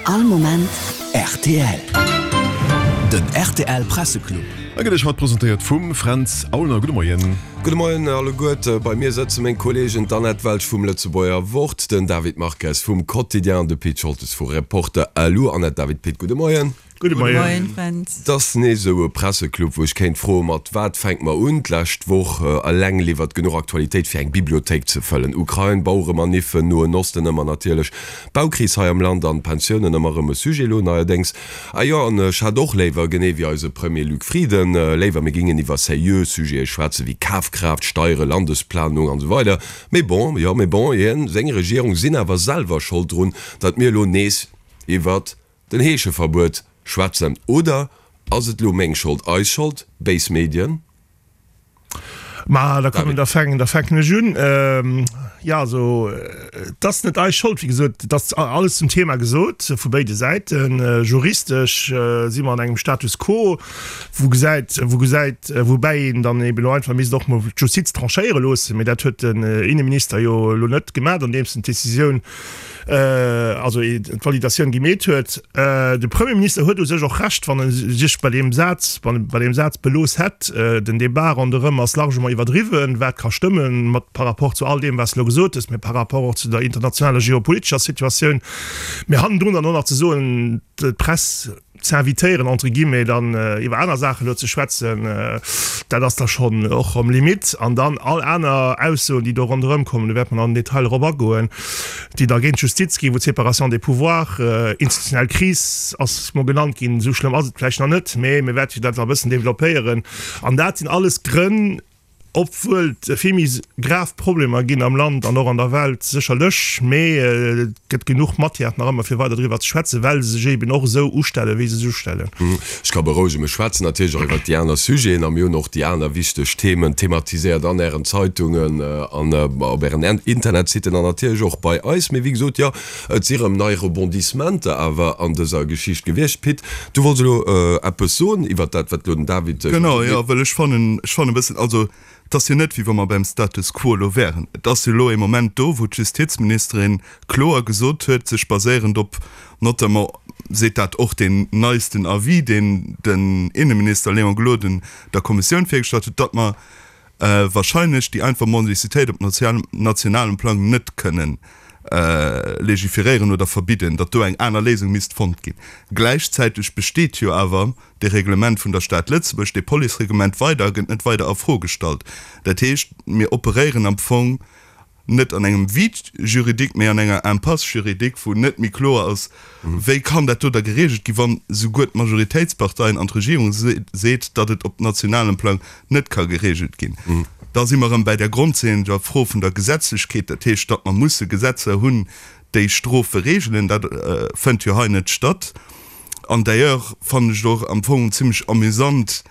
All Moment rtl. Den rtl Presseclub. A gëtt Iech haut presentéiert vum Fränz Aulner. Gudde Moien. Gudde Moien alleguerte. Bei mir sëtze meng Kolleegen, d'Annette Welsch vum Lëtzebuerger Wort, den David Marques vum Quotidien an de Pit Scholtes vu Reporter lu. Annette, David, Pit, gudde Moien. Gudde Moien, Fränz. Et ass nees esou e Presseclub, wou ech kéint froen, mat wat fänke mer un? D'lescht Woch eleng liwwert genuch Aktualitéit, fir eng Bibliothéik ze fëllen. Ukrain, Baueremaniffen, Noen Osten ëmmer natierlech, d'Baukris hei am Land an d'Pensiounen ëmmer erëm e Sujet elo neierdéngs. Ah jo, an ech hätt och léiwer, genee wéi eise Premier Luc Frieden, léiwer mir gingen iwwer seriö Sujete schwätzen, wéi Kafkraaft, Steiere, Landesplanung an esou weider. Mee bon, jo, mee bon, hien, seng Regierung sinn awer selwer Schold drun, datt mir elo nees iwwert Den Heescheverbuet schwätzen. Oder ass et lo meng Schold, eis Schold, béis Medien? Ma da kommen, da fänken, da fänken ech un. Jo, also et ass net eis Schold, wéi gesot, et ass alles zum Thema gesot vu béide Säiten. Juristesch si mer an engem Status quo, wou gesäit, wou gesäit, woubäi een dann eben elo einfach misst och mol d'Justiz tranchéiere loossen. Mee dat huet den Inneminister jo elo net gemaach, andeems en d'Decisioun, also d'Validatioun gemeet huet. De Premierminister huet u sech och Recht, wann e sech bei deem Saz, bei deem Saz belooss hätt. Den Débat ronderëm ass largement iwwerdriwwen, wat ka stëmmen, mat par rapport zu all deem, wat s de elo gesot hues, mä par rapport och zu der internationaler geopolitescher Situatioun. Mä hannendrun dann och nach ze soen, d'Press, z'invitéieren entre guillemets dann iwwer aner Saachen elo ze schwätzen, dat ass da schonn och erëm Limite. An dann all aner Aussoen, déi do ronderëm kommen, do wäerte mer nach am Detail erop agoen, déi da géint d'Justiz ginn, wou d'Séparation des pouvoirs, institutionell Kris ass mol genannt ginn, esou schlëmm ass et vläicht nach net, mä mir wäerte jo dat nach e bëssen développéieren. An dat sinn alles Grënn, Obwuel et vill méi grav Problemer ginn am Land an och an der Welt sécherlech, mee et gëtt genuch Matière nach ëmmer fir weider driwwer ze schwätzen, well se sech eben och esou ustellen, wéi se sech ustellen. Ech ka berouegen, mir schwätzen natierlech och iwwert déi aner Sujeten a mir hunn och déi aner wichteg Themen thematiséiert an Ären Zeitungen an op Ären Internetsitten an natierlech och bei eis. Mee wéi gesot, jo, Et si rëm nei Rebondissementer awer an dëser Geschicht gewiescht. Pit, du wollts elo eppes soen iwwert dat, wat elo den David gesot huet. Genau, jo, well ech fannen, ech fannen e bëssen, also et ass jo net, wéi wa mer beim Status quo elo wären. Et ass jo elo ee Moment do, wou d'Justizministerin kloer gesot huet, sech baséierend op notamment, seet dat och deen neisten Avis, deen den Inneminister Léon Gloden der Kommissioun virgestallt huet, datt mer wahrscheinlech déi einfach Mendicitéit op nationalem Plang net kënnen legiferéieren oder verbidden, datt do eng aner Léisung misst fonnt ginn. Gläichzäiteg besteet jo awer dee Reglement vun der Stad Lëtzebuerg, dee Policereglement weider a gëtt net weider a Fro gestallt. Dat heescht, mir operéieren am Fong net an engem Vide juridique, mee an enger Impasse juridique, wou net méi kloer ass, wéi kann dat do da geregelt ginn, wann souguer d'Majoritéitsparteien an d'Regierung seet, datt et op nationalem Plang net ka geregelt ginn. Da si mer erëm bäi der grondleeënder Fro vun der Gesetzlechkeet, dat heescht, datt mer musse Gesetzer hunn, déi Strofe regelen. Dat fënnt jo hei net statt. An d'ailleurs fannen ech et och am Fong zimlech amüsant,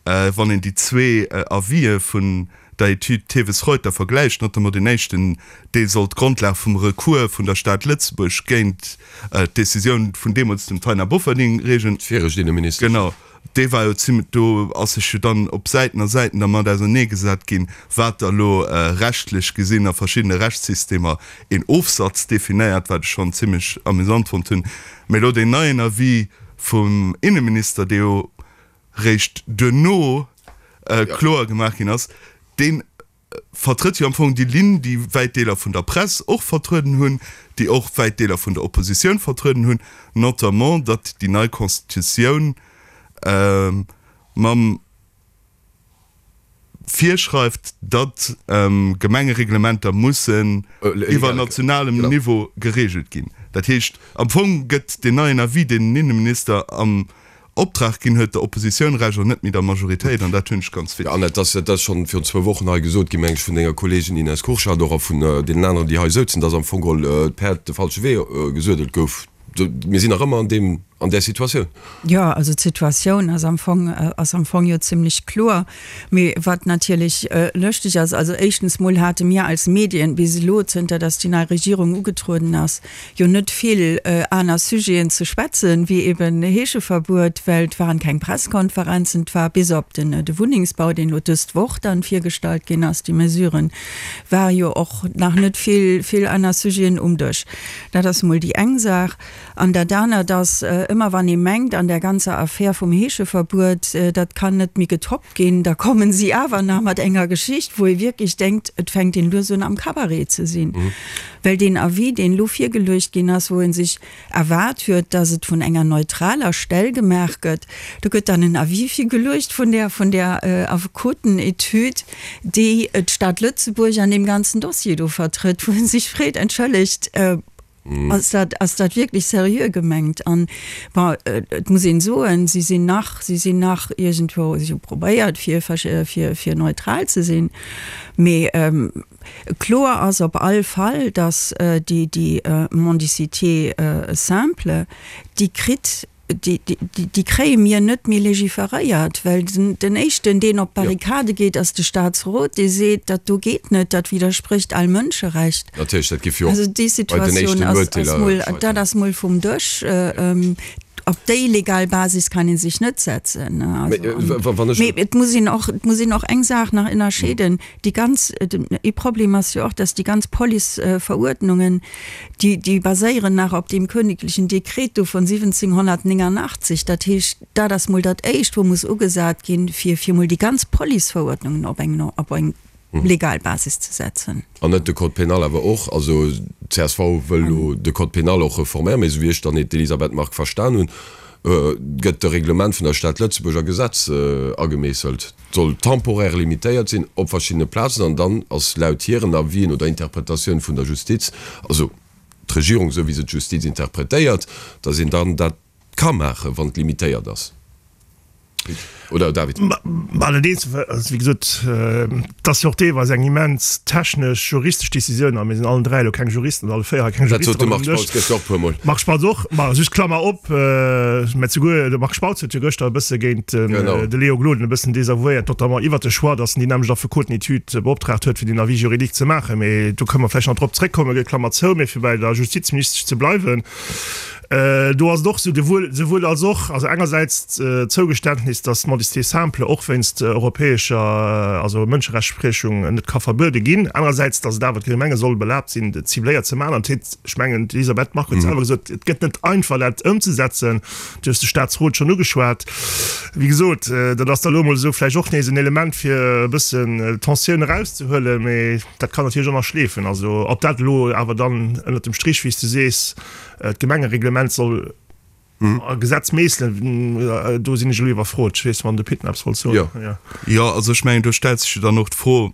wann een déi zwee Avisë vun der Etüd Theves-Reuter vergläicht, notamment deen éischten, dee soll d'Grondlag vum Recours vun der Stad Lëtzebuerg géint d'Decisioun vun deemools dem Taina Bofferding reegen. D'viregt Inneministesch. Genau, dee war jo zimlech, do ass sech jo dann op Säiten a Säiten dermat auserneegesat ginn, wat da lo rechtlech gesinn a verschiddene Rechtssystemer een Ofsatz definéiert, wat ech schonn zimlech amüsant fonnt hunn. Mee elo deen neien Avis vum Inneminister, dee jo réischt duerno kloer gemaach ginn ass, dee vertrëtt jo am Fong déi Linn, déi wäit Deeler vun der Press och vertrueden hunn, déi och wäit Deeler vun der Oppositioun vertrueden hunn, notamment datt déi nei Constitutioun mam virschreift, datt Gemengereglementer mussen iwwer nationalem Niveau geregelt ginn. Dat heescht, am Fong gëtt deen neien Avis, deen den Inneminister am Optrag ginn huet, der Oppositioun Recht an net méi der Majoritéit, an dat hunn ech ganz witzeg. Annette, dat ass schonn virun zwou Wochen hei gesot ginn, meng ech, vun denger Kolleegin Ines Kurschat och a vun deenen aneren, déi hei souzen, datt am Fong geholl d'Päerd de falsche Wee gesuedelt gouf. Mir sinn nach ëmmer an deem. An där Situatioun? Jo, also d'Situatioun ass am Fong, ass am Fong jo zimlech kloer. Mee wat natierlech lëschteg ass, also éischtens mol hate mir als Medien bis elo, zënter datt déi nei Regierung ugetrueden ass, jo net vill aner Sujeten ze schwätzen, wéi eben Heescheverbuet, well et waren keng Presskonferenzen, et war bis op den de Wunnengsbau, deen elo dëst Woch dann virgestallt ginn ass, déi Mesuren, war jo och nach net vill, vill aner Sujeten um Dësch. Dat ass mol déi eng Saach. An dat anert ass, ëmmer wann ee mengt, an där ganzer Affär vum Heescheverbuet, dat kann net méi getoppt ginn, da kommen si awer nach mat enger Geschicht, wou ee wierklech denkt, et fänkt een lues un am Cabaret ze sinn. Well deen Avis, deen elo virgeluecht ginn ass, wou ee sech erwaart huet, datt et vun enger neutraler Stell gemaach gëtt, do gëtt dann en Avis virgeluecht vun där, vun där Affekotenetüd, déi d'Stad Lëtzebuerg an deem ganzen Dossier do vertrëtt, wou ee sech freet, Entschëllegt, Ass dat, ass dat wierklech seriö gemengt? An, bon, et muss een soen, si sinn nach, si sinn nach iergendwou, si hu probéiert, fir, fir, fir neutral ze sinn. Mee kloer ass op all Fall, datt déi, déi Mendicité simple, déi kritt Déi kréie mir net méi legiferéiert, well den éischten, deen op d'Barrikade geet, ass de Staatsrot, dee seet, dat do geet net, dat widdersprécht all Mënscherecht. Natierlech, dat géif jo och bei den éischten Urteeler scheitern. Dat ass mol vum Dësch. Op déi legal Basis kann ee sech net setzen. Mee et muss een och, et muss een och eng Saach nach ënnerscheeden, Déi ganz, ee Problem ass jo och, dass déi ganz Policeveruerdnungen, Déi, déi baséieren nach op deem königlichen Dekret do vun 1789. Dat heescht, dat ass mol dat Éischt, wou muss ugesat ginn, fir, fir mol déi ganz Policeverordnungen op eng, op eng legal Basis ze setzen. An net de Code pénal awer och. Also csv wëll elo de Code pénal och reforméieren, mee esou wéi ech dann d'Elisabeth Margue verstan hunn, gëtt de Reglement vun der Stad Lëtzebuerg a Gesetz agemeesselt. Soll temporaire limitéiert sinn op verschiddene Plazen an dann ass laut hiren Avisen oder Interpretatioun vun der Justiz, also d'Regierung esou wéi se d'Justiz interpretéiert, datt een dann dat ka maachen, wann et limitéiert ass. Pit oder David? Mä allerdéngs, also wéi gesot, et ass jo och deelweis eng immens technesch, juristesch Décisioun a mir sinn allen 3 elo keng Juristen oder alle 4 hei keng Dat sot de Marc Spautz gëschter och e puermol. Marc Spautz och, ma just Klammer op, mä souguer de Marc Spautz huet jo gëschter e bësse géint de Léo Gloden e bëssen desavouéiert, notamment iwwert de Choix, datt en déi nämmlecht Affekotenetüd beoptraagt huet, fir deen Avis juridique ze maachen. Mee do kënne mer vläicht nach drop zréckkommen, Klammer zou. Mee fir bei der Justizministesch ze bleiwen, Do ass et och esou, souwuel als och, also engersäits d'Zougeständnis, datt d'Mendicité simple och wéinst europäescher, also Mënscherechtsprechung net ka verbuede ginn, anerersäits, datt et awer d'Gemenge soll erlaabt sinn, et cibléiert ze maachen. An et, ech mengen, d'Elisabeth Margue huet selwer gesot, et gëtt net einfach, dat ëmzesetzen. Du hues de Staatsrot schonn ugeschwat. Wéi gesot, dat ass da elo emol esou vläicht och nees en Element, fir e bëssen d'Tensioun erauszehuelen, mee dat kann natierlech och nach schleefen. Also ob dat elo awer dann ënnert dem Strich, wéi s de sees, D'Gemengereglement soll a Gesetz meesselen, do sinn ech elo iwwerfrot. Ech weess, wann de Pit nach eppes wollt soen. Jo. Jo, also ech mengen, do stellt sech jo dann och d'Fro,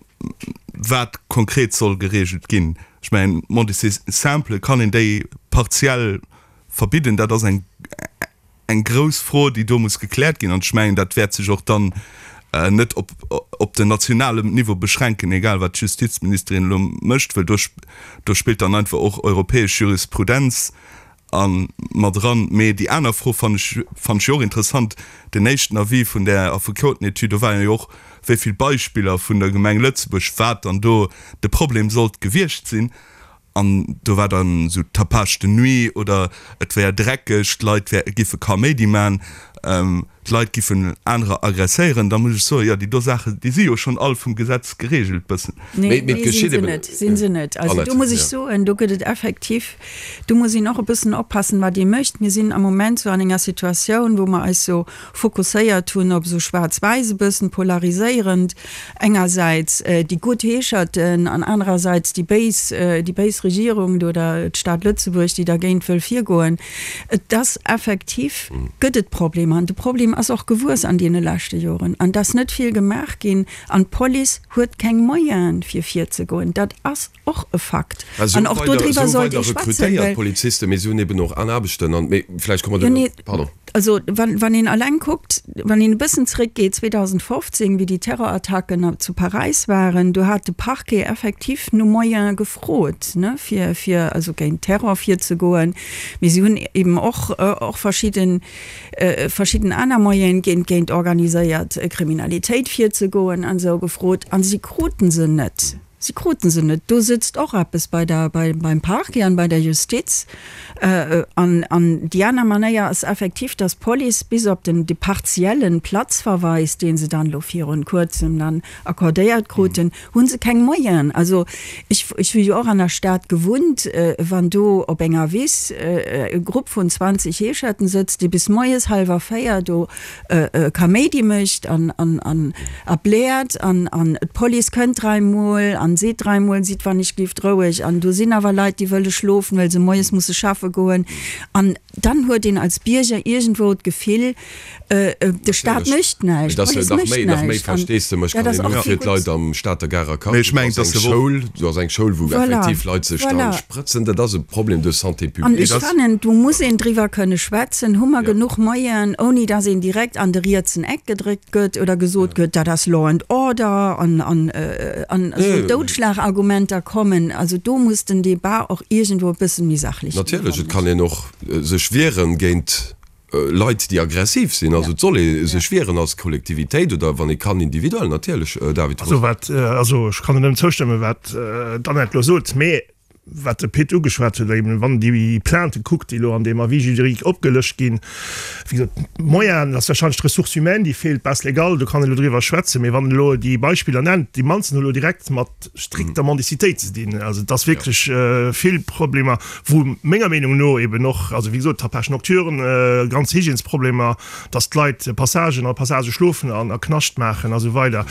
wat konkret soll geregelt ginn. Ech mengen, d'Mendicité simple, kann een déi partiell verbidden? Dat ass eng. eng grouss Fro, déi do muss gekläert ginn. An ech mengen, dat wäert sech och dann net op, op den nationalem Niveau beschränken, egal wat d'Justizministerin elo mécht, well do, do spillt dann einfach och europäesch Jurisprudenz a mat eran. Mee déi aner Fro fannen ech, fannen ech jo och interessant, Den éischten Avis vun där Affekotenetüd, do waren jo och wéi vill Beispiller vun der Gemeng Lëtzebuerg, wat dann do de Problem sollt gewiescht sinn. An do war dann esou Tapage de nuit oder et wär dreckeg, d'Leit wär, giffe Kaméidi man, d'Leit giffen anerer aggresséieren. Da muss ech soen, jo, déi do Saachen, déi si jo schonn all vum Gesetz geregelt bëssen. Nee, nee, sinn se net, sinn se net. Also do muss ech soen, do gëtt et effektiv, do muss een och e bëssen oppassen, wat ee mécht. Mir sinn am Moment sou an enger Situatioun, wou mer eis sou fokusséiert hunn op esou schwaarz-wäiss e bëssen polariséierend, engersäits déi gutt Heescherten an anerersäits déi béis, déi béis Regierung oder d'Stad Lëtzebuerg, déi dergéint wëll virgoen. Et ass effektiv, gëtt et Problemer. An de Problem. Problem ass och gewuess an deene leschte Joren an et ass net vill gemaach ginn an d'Police huet keng Moyene fir virzegoen. Dat ass och e Fakt an och dodriwwer sollt ee schwätzen, well. Polizisten, mee si hunn eben och aner Aarbechten an, mee vläicht komme mer do, pardon. Also wann een alleng kuckt, wann een e bëssen zréckgeet, 2015, wéi déi Terrorattacken zu Paräis waren, do hat de Parquet effektiv no Moyene gefrot, ne, fir, fir also géint Terror virzegoen. Mee si hunn eben och, och verschidden, verschidden aner Moyene géint, géint organiséiert Kriminalitéit virzegoen an esou gefrot, a si kruten se net. Si kruten se net. Do sëtzt och eppes bei der, bei, beim Parquet an bei der Justiz. An, an déi aner Manéier ass effektiv, dass d'Police bis op den, de partiellen Platzverweis, dee se dann elo virun Kuerzem dann accordéiert kruten, hu se keng Moyenen. Also ech, ech hu jo och an der Stad gewunnt, wann do op enger Wiss e Grupp vun 20 Heescherten sëtzt, dee bis moies hallwer 4 do Kaméidi mécht an an a bläert an an d'Police kënnt dräimol an seet dräimol, sidd wann ech gelift roueg an do sinn awer Leit déi wëlle schlofen, well se moies musse schaffe goen an dann huet een als Bierger iergendwou d'Gefill, de Staat mécht näischt, d'Police mécht näischt an dat ass och kee gutt. Am Stater Garer Quartier, do ass eng Schoul, do ass eng Schoul wou effektiv Leit sech dann sprëtzen, dat ass e Problem de santé publique. An ech fannen, do muss een driwwer kënne schwätzen, hu mer genuch Moyenen, ouni datt een direkt an de rietsen Eck gedréckt gëtt oder gesot gëtt, dat ass Law and Order an an an esou Doudschlagargumenter kommen. Also do muss den Debat och iergendwou e bëssen méi sachlech ginn, Natierlech, et kann een och sech wieren géint Leit, déi aggressiv sinn. Also et soll ee sech wieren als Kollektivitéit oder wann ee kann individuell, natierlech, David Roth. Also wat, also ech kann nëmmen zoustëmmen, wat d'Annette elo sot, mee wat de Pit ugeschwat huet, eben wann een déi Plaintë kuckt, déi elo an deem Avis juridique opgelëscht ginn, wéi gesot, d'Moyenen, dat ass warscheinlech d'Ressource humaine, déi feelt, d'Base légale, do kann een elo driwwer schwätzen, mee wann een elo déi Beispiller nennt, déi mannsten hu elo direkt mat strikter Mendicitéit ze dinn. Also et ass wierklech vill Problemer, wou menger Meenung no eben och, also wéi gesot, Tapage nocturne, ganz Hygiènesproblemer, dass d'Leit Passagen a Passagë schlofen an a Knascht maachen a sou weider.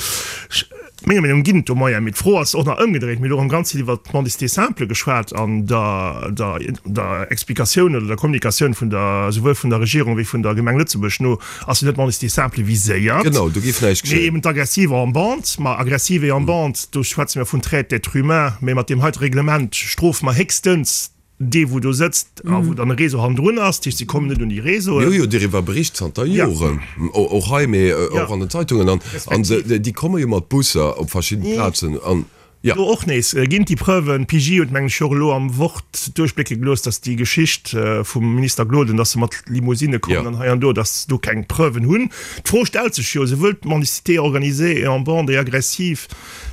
Menger Meenung no ginn et do Moyenen, mee d'Fro ass och nach ëmgedréit. Mir hunn elo erëm ganz vill iwwert d'Mendicité simple geschwat an der, der, der Explikatioun oder der Kommunikatioun vun der, souwuel vun der Regierung wéi vun der Gemeng Lëtzebuerg no ass jo net d'Mendicité simple viséiert, Genau, do géif näischt mee geschéien. eben d'Aggressive en bande. Ma Aggressive en bande, do schwätze mir vun Traite d'êtres humains, mee mat deem heite Reglement strofe mer héchstens Dee wou do sëtzt a wou dann e Réseau hannendrun ass, dat heescht si kommen net un déi Réseauen. Mir hu jo doriwwer bericht zanter Joren, och hei, mee och an den Zeitungen, an déi komme jo mat Busser op verschidden Plazen an, jo. Do och nees ginn déi Preuven. D'PJ huet mengen ech jo och elo am Wort duerchblécke gelooss, datt déi Geschicht vum Minister Gloden, datt se mat Limousine kommen an hei an do, datt se do keng Preuven hunn. D'Fro stellt sech jo, souwuel d'Mendicité organisée et en bande et agressive,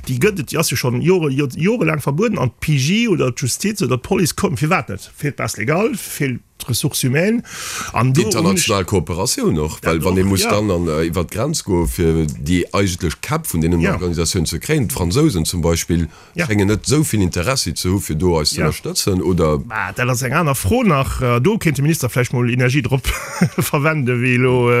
Déi gëtt et, déi ass jo schonn Jore, jorelaang verbueden an d'PJ oder d'Justiz oder d'Police kommen, firwat net? Feelt d'Base légale, feelt d'Ressources humaines an do hunn ech. D'international Kooperatioun och, well wann ee muss dann an iwwert d'Grenz goe fir déi eigentlech Käpp vun deenen Organisatiounen ze kréien, d'Fransousen zum Beispill schéngen net esou vill Interessi ze hu fir do eis ze ënnerstëtzen, oder? Mä dat ass eng aner Fro nach. Do kéint de Minister vläicht mol Energie drop verwenden, wéi elo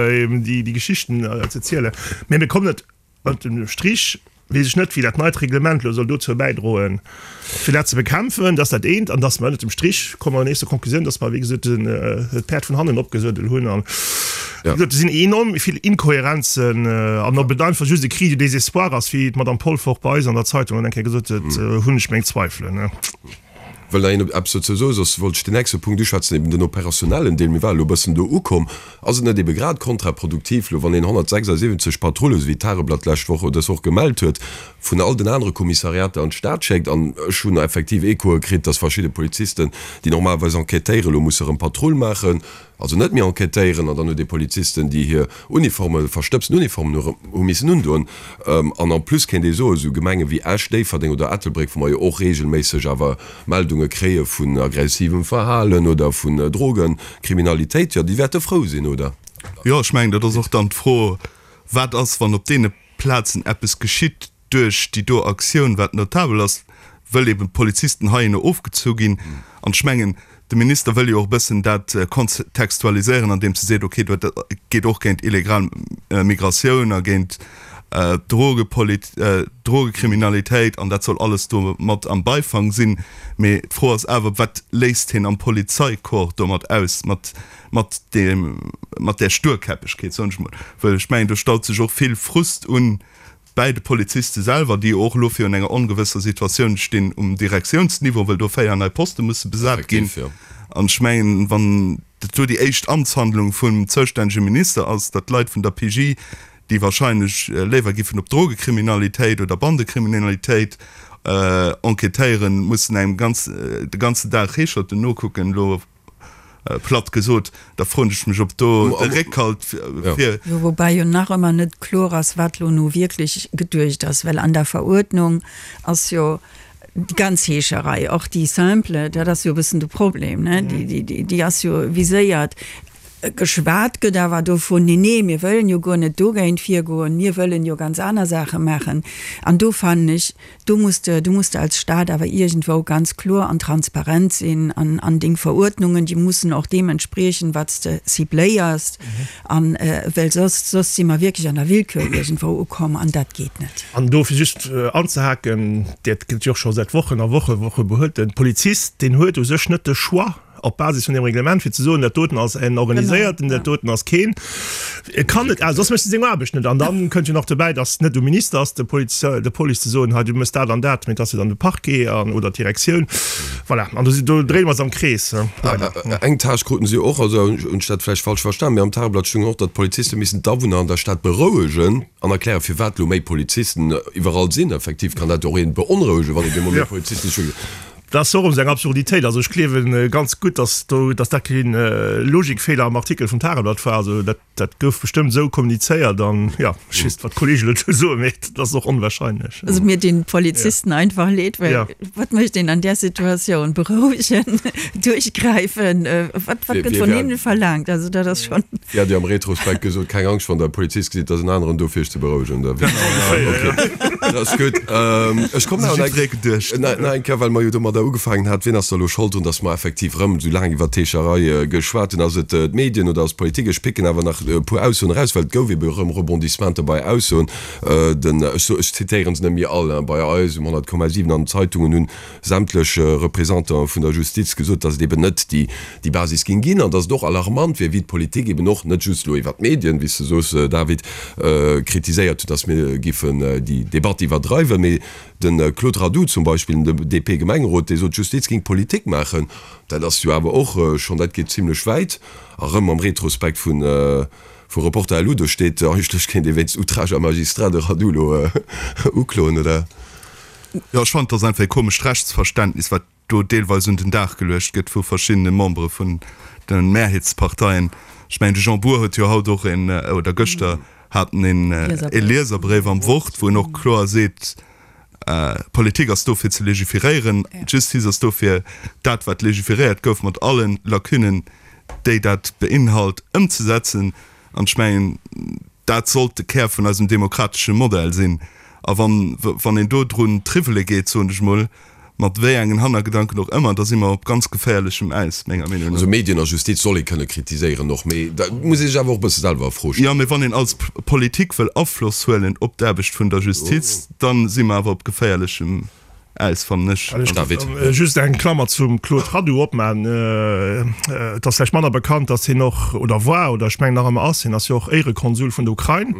déi Geschichten ze zielen. Mä mir kommen net Ënnert dem Strich weess ech net, wéi dat neit Reglement elo soll dozou bäidroen, fir dat ze bekämpfen. Dat ass dat eent. An dass mer ënnert dem Strich komme mer nees zur Konklusioun, dass mer, wéi gesot, d'Päerd vun hannen opgesuedelt hunn. An, wéi gesot, do sinn enorm vill Inkohärenzen. An ob et einfach just e Cri du désespoir ass, wéi d'Madame Polfer och bei eis an der Zeitung dann eng Kéier gesot huet, hunn ech meng Zweifelen. Wëll nach een eppes dozou soen, soss wollt ech den nächste Punkt uschwätzen, eben den operationnellen Deel. Mir ware elo e bëssen do ukomm. Ass et net ebe grad kontraproduktiv elo, wann een 176 Patrullen, esou wéi d'Tageblatt d'lescht Woch oder dës Woch gemellt huet, vun all den anere Kommissariater an d'Stad schéckt? An ech hunn effektiv Echoe kritt, dass verschidde Polizisten, déi normalerweis enquêtéieren, elo musse erëm Patrull maachen, Also net méi enquêtéieren an dann huet ee Polizisten, déi hir Uniformen, verstëbsten Uniformen hu hu missen undoen. An en plus kéint ee soen, esou Gemenge wéi Esch, Déifferdeng oder Ettelbréck, wou mer jo och reegelméisseg awer Meldunge kréie vun aggressivem Verhalen oder vun Drogenkriminalitéit, jo déi wäerte frou sinn, oder? Jo, ech mengen, dat ass och dann d'Fro, Wat ass, wann op deene Plazen eppes geschitt duerch déi do Aktioun, wat notabel ass, wëll eben d'Polizisten heihinner ofgezu ginn. An ech mengen, de Minister wëll jo och e bëssen dat kontextualiséieren, andeems e seet, okay, dat geet och géint illegal Migratioun a géint. Drogekriminalitéit an dat soll alles do mat am Beifang sinn. Mee d'Fro ass awer, wat léisst hien am Polizeicorps domat aus, mat mat deem, mat där Sturkäppegkeet, soen ech mol. Well ech mengen, do staut sech och vill Frust un bäi de Poliziste selwer, déi jo och elo virun enger ongewësser Situatioun stinn um Direktiounsniveau, well do 4 nei Poste musse besat ginn. An ech mengen, wann dat do déi éischt Amtshandlung vum zoustännege Minister ass, datt d'Leit vun der PJ, déi wahrscheinlech léiwer giffen op Drogekriminalitéit oder Bandekriminalitéit enquêtéieren, mussen engem de ganzen Dag Heescherten nokucken, elo Platt gesot, da froen ech mech, ob do de Réckhalt fir. Jo, woubäi jo nach ëmmer net kloer ass, wat lo nu wierklech geduecht ass, well an der Veruerdnung ass jo déi ganz Heescherei, och déi simple, dat ass jo e bëssen de Problem, ne, déi ass jo viséiert. Geschwat gëtt awer dovun, nee, nee, mir wëllen jo guer net dogéint virgoen, mir wëllen jo ganz aner Saache maachen. An do fannen ech, do muss de, do muss de als Stat awer iergendwou ganz kloer an transparent sinn an, an deng Veruerdnungen, déi mussen och deem entspriechen, wat s de cibléiers. An, well soss, soss si mer wierklech an der Willkür iergendwou ukomm an dat geet net. An do fir just anzehaken, dat gëtt jo och scho säit Wochen a Woche, Woche behuet, de Polizist, deen huet u sech net de Choix, op Basis vun deem Reglement, fir ze soen, dat doten ass en organiséierten, dat doten ass keen. E kann net, soss mécht e seng Aarbecht net. An dann kënnt jo nach dobäi, datt et net um Minister ass, de Poliz, der Police ze soen, hei du méchs dat an dat, mee et ass jo dann de Parquet an, oder d'Direktioun. Voilà, an do si, do dréine mer eis am Krees, leider. Eng Tâche kruten si och, also hunn ech dat vläicht falsch verstan, mee am Tageblatt stoung och, datt d'Poliziste missten d'Awunner an der Stad berouegen an erklären, firwat elo méi Polizisten iwwerall sinn. Effektiv kann dat och een beonrouegen, wann op eemol méi Polizisten scho. Dat ass och erëm esou eng Absurditéit. Also ech gleewe ganz gutt, datt do, datt dat kee Logikfeeler am Artikel vum Tageblatt war. Also dat, dat gouf bestëmmt esou kommunizéiert an, jo, ech weess net, wat d'Kollegen dozou soen, mee dat ass och onwahrscheinlech. Also mir dinn d'Polizisten einfach leed, well wat mécht een an där Situatioun? Berouegen, duerchgräifen, wat, wat gëtt vun hinne verlaangt? Also dat ass schonn. Dir hat jo am Retrospekt gesot, keng Angscht, wann der e Polizist gesitt, ass en aneren do fir iech ze berouegen. Da okay, dat ass gutt. Ech kommen awer nach eng, nach eng Kéier, well mer jo domadder ugefaangen hat, wien ass da elo Schold drun, datt mer effektiv erëm esou laang iwwert d'Heescherei geschwat hunn? Ass et d'Medien oder ass d'Politik? Ech picken awer nach e puer Aussoen eraus, well et gouf ebe erëm Rebondissementer bei Aussoen. Den, ech so, ech zitéieren se net méi all, hein, bei eis um 100,7 an den Zeitungen hunn sämtlech Représentanten vun der Justiz gesot, datt et eben net déi déi Basis géing ginn an datt et och alarmant wier, wéi d'Politik eben och, net just elo iwwert d'Medien, wéi s de soos, David, kritiséiert huet, datt mir giffen déi Debatt iwwerdreiwen. Mee de Claude Radoux zum Beispill, den DP-Gemengerot, dee sot, d'Justiz géing Politik maachen. Dat ass jo awer och schonn, dat geet zimlech wäit. A rëm am Retrospekt vu vu Reporter LU, do steet, eigentlech kéint ee wéinst Outrage à magistrat de Radoux elo ukloen, oder? Jo, ech fannen, et ass einfach e komescht Rechtsverständnis, wat do deelweis un den Dag geluecht gëtt vu verschiddene Membere vun de Mehrheetsparteien. Ech mengen, de Jean Bour huet jo haut och een, oder gëschter hat en een e Lieserbréif am Wort, wou en och kloer seet, D'Politik ass do fir ze legiferéieren, d'Justiz ass do fir dat, wat legiferéiert gouf, mat alle Lacunnen, déi dat beinhalt, ëmzesetzen. An ech mengen, dat sollt de Kär vun eisem demokratesche Modell sinn. A wann, wann een do drun triwwele geet, soen ech emol, mat wéi engen Hannergedanken och ëmmer, da si mer op ganz geféierlechem Äis, menger Meenung no. Also Medien a Justiz soll ee kënne kritiséieren och, mee da muss ee sech awer och e bësse selwer a Fro stellen. Jo, mee wann een als Politik wëll Afloss huelen op d'Aarbecht vun der Justiz, da si mer awer op geféierlechem Äis, fannen ech. David. Just eng Klammer zum Claude Radoux opmaachen. Et ass vläicht manner bekannt, datt hien och, oder war, oder ech mengen nach ëmmer ass, hien ass jo och Éirekonsul vun der Ukrain.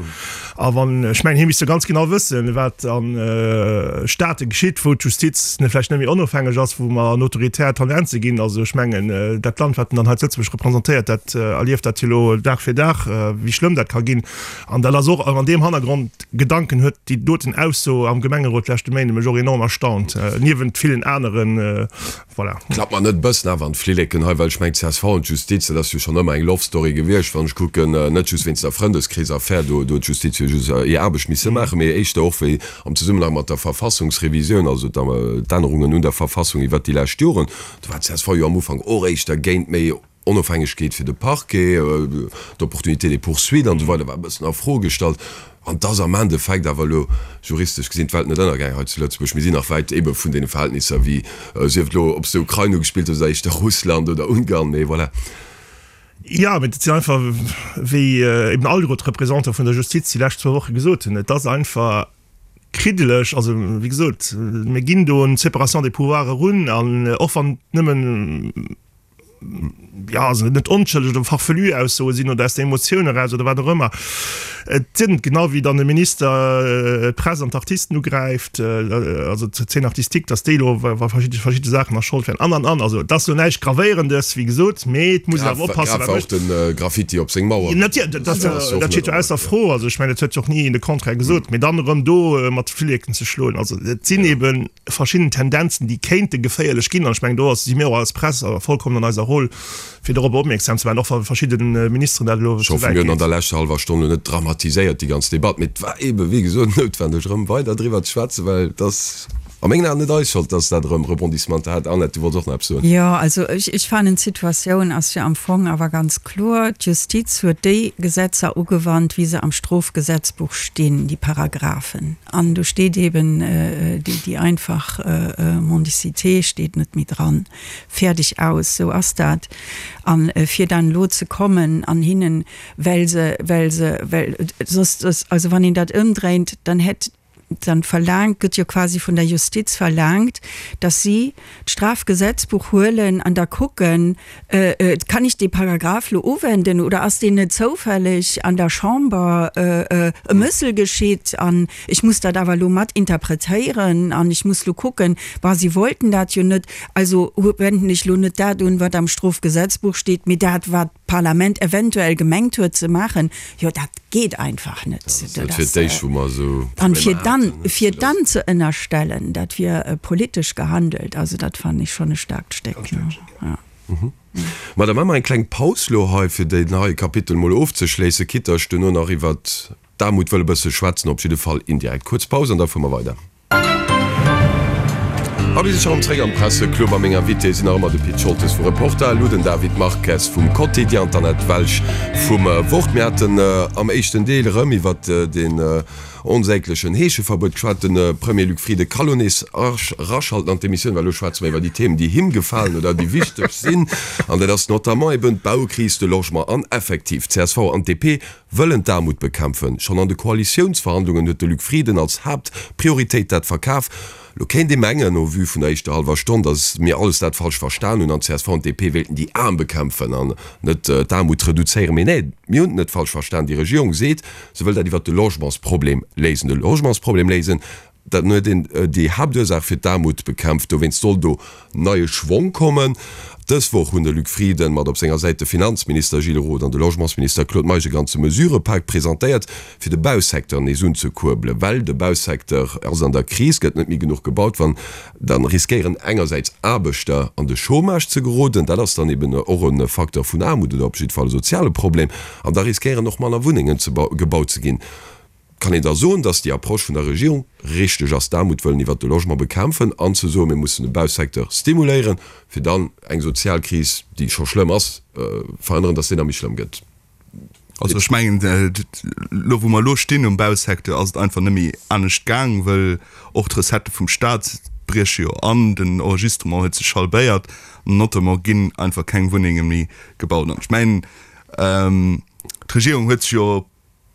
A wann, ech mengen, hie misst jo ganz genau wëssen, wat a Staate geschitt, wou d'Justiz vläicht net méi onofhängeg ass, wou mer an autoritär Tendenze ginn. Also ech mengen, dat Land, wat en dann hei zu Lëtzebuerg representéiert, dat erlieft dat jo elo Dag fir Dag, wéi schlëmm dat ka ginn. An dat ass och an deem Hannergrond Gedanken huet déi doten Ausso am Gemengerot leschte Méinde mech och enorm erstaunt, niewent villen aneren. Voilà. Klappt mer net e bëssen awer an d'Flilleken hei, well ech mengen csv an d'Justiz, dat ass jo schonn ëmmer eng Love Story gewiescht, wann ech kucken, net just wéinst der Frëndeskrees-Affär, do huet d'Justiz jo just hir Aarbecht misse maachen, mee éischter och wéi am Zesummenhang mat der Verfassungsrevisioun, also d'Ännerungen un der Verfassung iwwert déi lescht Joren, do war csv jo am Ufank och éischter géint méi Onofhängegkeet fir de Parquet, d'Opportunité des poursuites an esou weider war e bëssen a Fro gestallt. An et ass am Endeffekt awer elo juristesch gesinn d'Welt net ënnergaang hei zu Lëtzebuerg. Mir sinn nach wäit ebe vun deene Verhältnisser wéi, sief et elo, ob s de Ukrain ugespillt hues oder éischter Russland oder Ungarn, mee voilà. Jo, mee dat sinn einfach, wéi eben alleguer d'Representantë vun der Justiz déi lescht zwou Woche gesot hunn, et ass einfach kriddeleg. Also, wéi gesot, mir ginn do un d'Séparation des pouvoirs erun an och wann et nëmmen, jo, also net onschëlleg oder farfelu Aussoe sinn oder aus der Emotioun eraus oder wat och ëmmer, et sinn, genau wéi dann de Minister d'Press an d'Artisten ugräift, also d'Scène artistique, datt déi elo wa verschidde verschidde Saachen a Schold wären an an an. Also et ass elo näischt Gravéierendes, wéi gesot, mee et muss een awer oppassen, wat mécht. Grave war och de Graffiti op seng Mauer. Natierlech, dat dat steet jo ausser Fro. Also ech mengen, et huet jo och ni een de Contraire gesot, mee dann erëm do mat de Flilleken ze schloen, also et sinn eeben verschidden Tendenzen, déi kéinte geféierlech ginn. An ech mengen, do ass, si mir och als Press vollkommen an eiser Roll, fir dorobber opmierksam ze maachen, och wa verschidde Ministeren dat elo Ech ze hoffe, wäit mir hunn an geet. der leschter hallwer Stonn elo net dramatiséiert, déi ganz Debatt, mee et war eebe wéi gesot noutwendeg, erëm weider driwwer ze schwätzen, well et ass a mengen Aen net eis Schold, dass dat erëm Rebondissementer hat. Annette, du wollts och nach eppes soen. Jo, also ech, ech fannen, d'Situatioun ass jo am Fong awer ganz kloer. D'Justiz huet déi Gesetzer ugewannt, wéi se am Strofgesetzbuch stinn, déi Paragraphen. An do steet eben déi einfach Mendicité steet net méi dran. Fäerdeg, aus. Sou ass dat. A fir dann elo ze kommen an hinnen, well se, well se, well soss, soss, also wann een dat ëmdréint, dann hätt, dann verlaangt, gëtt jo quasi vun der Justiz verlaangt, datt si d'Strafgesetzbuch huelen an da kucken, Kann ech dee Paragraph lo uwenden oder ass deen net zoufälleg an der Chamber e Mëssel geschitt an ech muss dat awer lo mat interpretéieren an ech muss lo kucken, bah, si wollten dat jo net, also wenden ech lo net dat un, wat am Strofgesetzbuch steet, mee dat, wat d'Parlament eventuell gemengt huet ze maachen. Jo, dat geet einfach net. Dat ass net fir d'éischt, wou mer esou An fir dann, fir dann ze ënnerstellen, dat wier politesch gehandelt, also dat fannen ech schonn e staarkt Stéck. Ja. Ma da maache mer eng kleng Paus lo hei, fir deen heie Kapitel mol ofzeschléissen, quitte ech duerno nach iwwert d'Aarmut wëll e bësse schwätzen, op jidde Fall indirekt. Kuerz Paus an da fuere mer weider. A mir si scho rëm zréck am Presseclub a meng Invitéë sinn nach ëmmer de Pit Scholtes vu Reporter, elo den David Marques vum Quotidien an d'Annette Welsch vum Wort. Mir haten am éischten Deel erëm iwwert deen onsäglechen Heescheverbuet geschwat. De Premier Luc Frieden ka lo nees eraschalten an d'Emissioun, well elo schwätze mer iwwer déi Themen, déi him gefalen oder déi wichteg sinn. An dat ass notamment eben d'Baukris, de Logement an effektiv d'CSV an d'DP wëllen d'Aarmut bekämpfen. Schonn an de Koalitiounsverhandlungen huet de Luc Frieden als Haaptprioritéit dat verkaf. Lo kéint ee mengen, au vu vun der éischter hallwer Stonn, datt mir alles dat falsch verstan hunn an csv an DP wéilten déi Aarm bekämpfen an net d'Aarmut reduzéieren. Mee nee, mir hunn et net falsch verstan. Déi Regierung seet, se wëll dat iwwert de Logementsproblem léisen. De Logementsproblem léisen, dann huet een déi Haaptursaach fir d'Aarmut bekämpft. Dowéinst soll do neie Schwong kommen. Dës Woch hunn de Luc Frieden, mat op senger Säit de Finanzminister Gilles Roth an de Logementsminister Claude Meisch e ganze Mesurëpak presentéiert, fir de Bausecteur nees unzekuerbelen. Well de Bausecteur ass an der Kris, gëtt net méi genuch gebaut. Wann, da riskéieren engersäits Aarbechter an de Chômage ze geroden, dat ass dann eben och e Facteur vun Aarmut oder op jidde Fall e soziale Problem, an da riskéieren och manner Wunnengen gebaut ze ginn. Kann een da soen, datt déi Approche vun der Regierung richteg ass, d'Aarmut wëllen iwwert de Logement bekämpfen an ze soen, mir mussen de Bausecteur stimuléieren, fir dann eng sozial Kris, déi scho schlëmm ass, verhënneren, datt déi nach méi schlëmm gëtt? Also ech mengen, elo wou mer elo stinn um Bausecteur, ass et einfach net méi anescht gaang, wëll och d'Recettë vum Stat brieche jo an, den Enregistrement huet sech halbéiert, notamment ginn einfach keng Wunnenge méi gebaut. An ech mengen, d'Regierung huet sech jo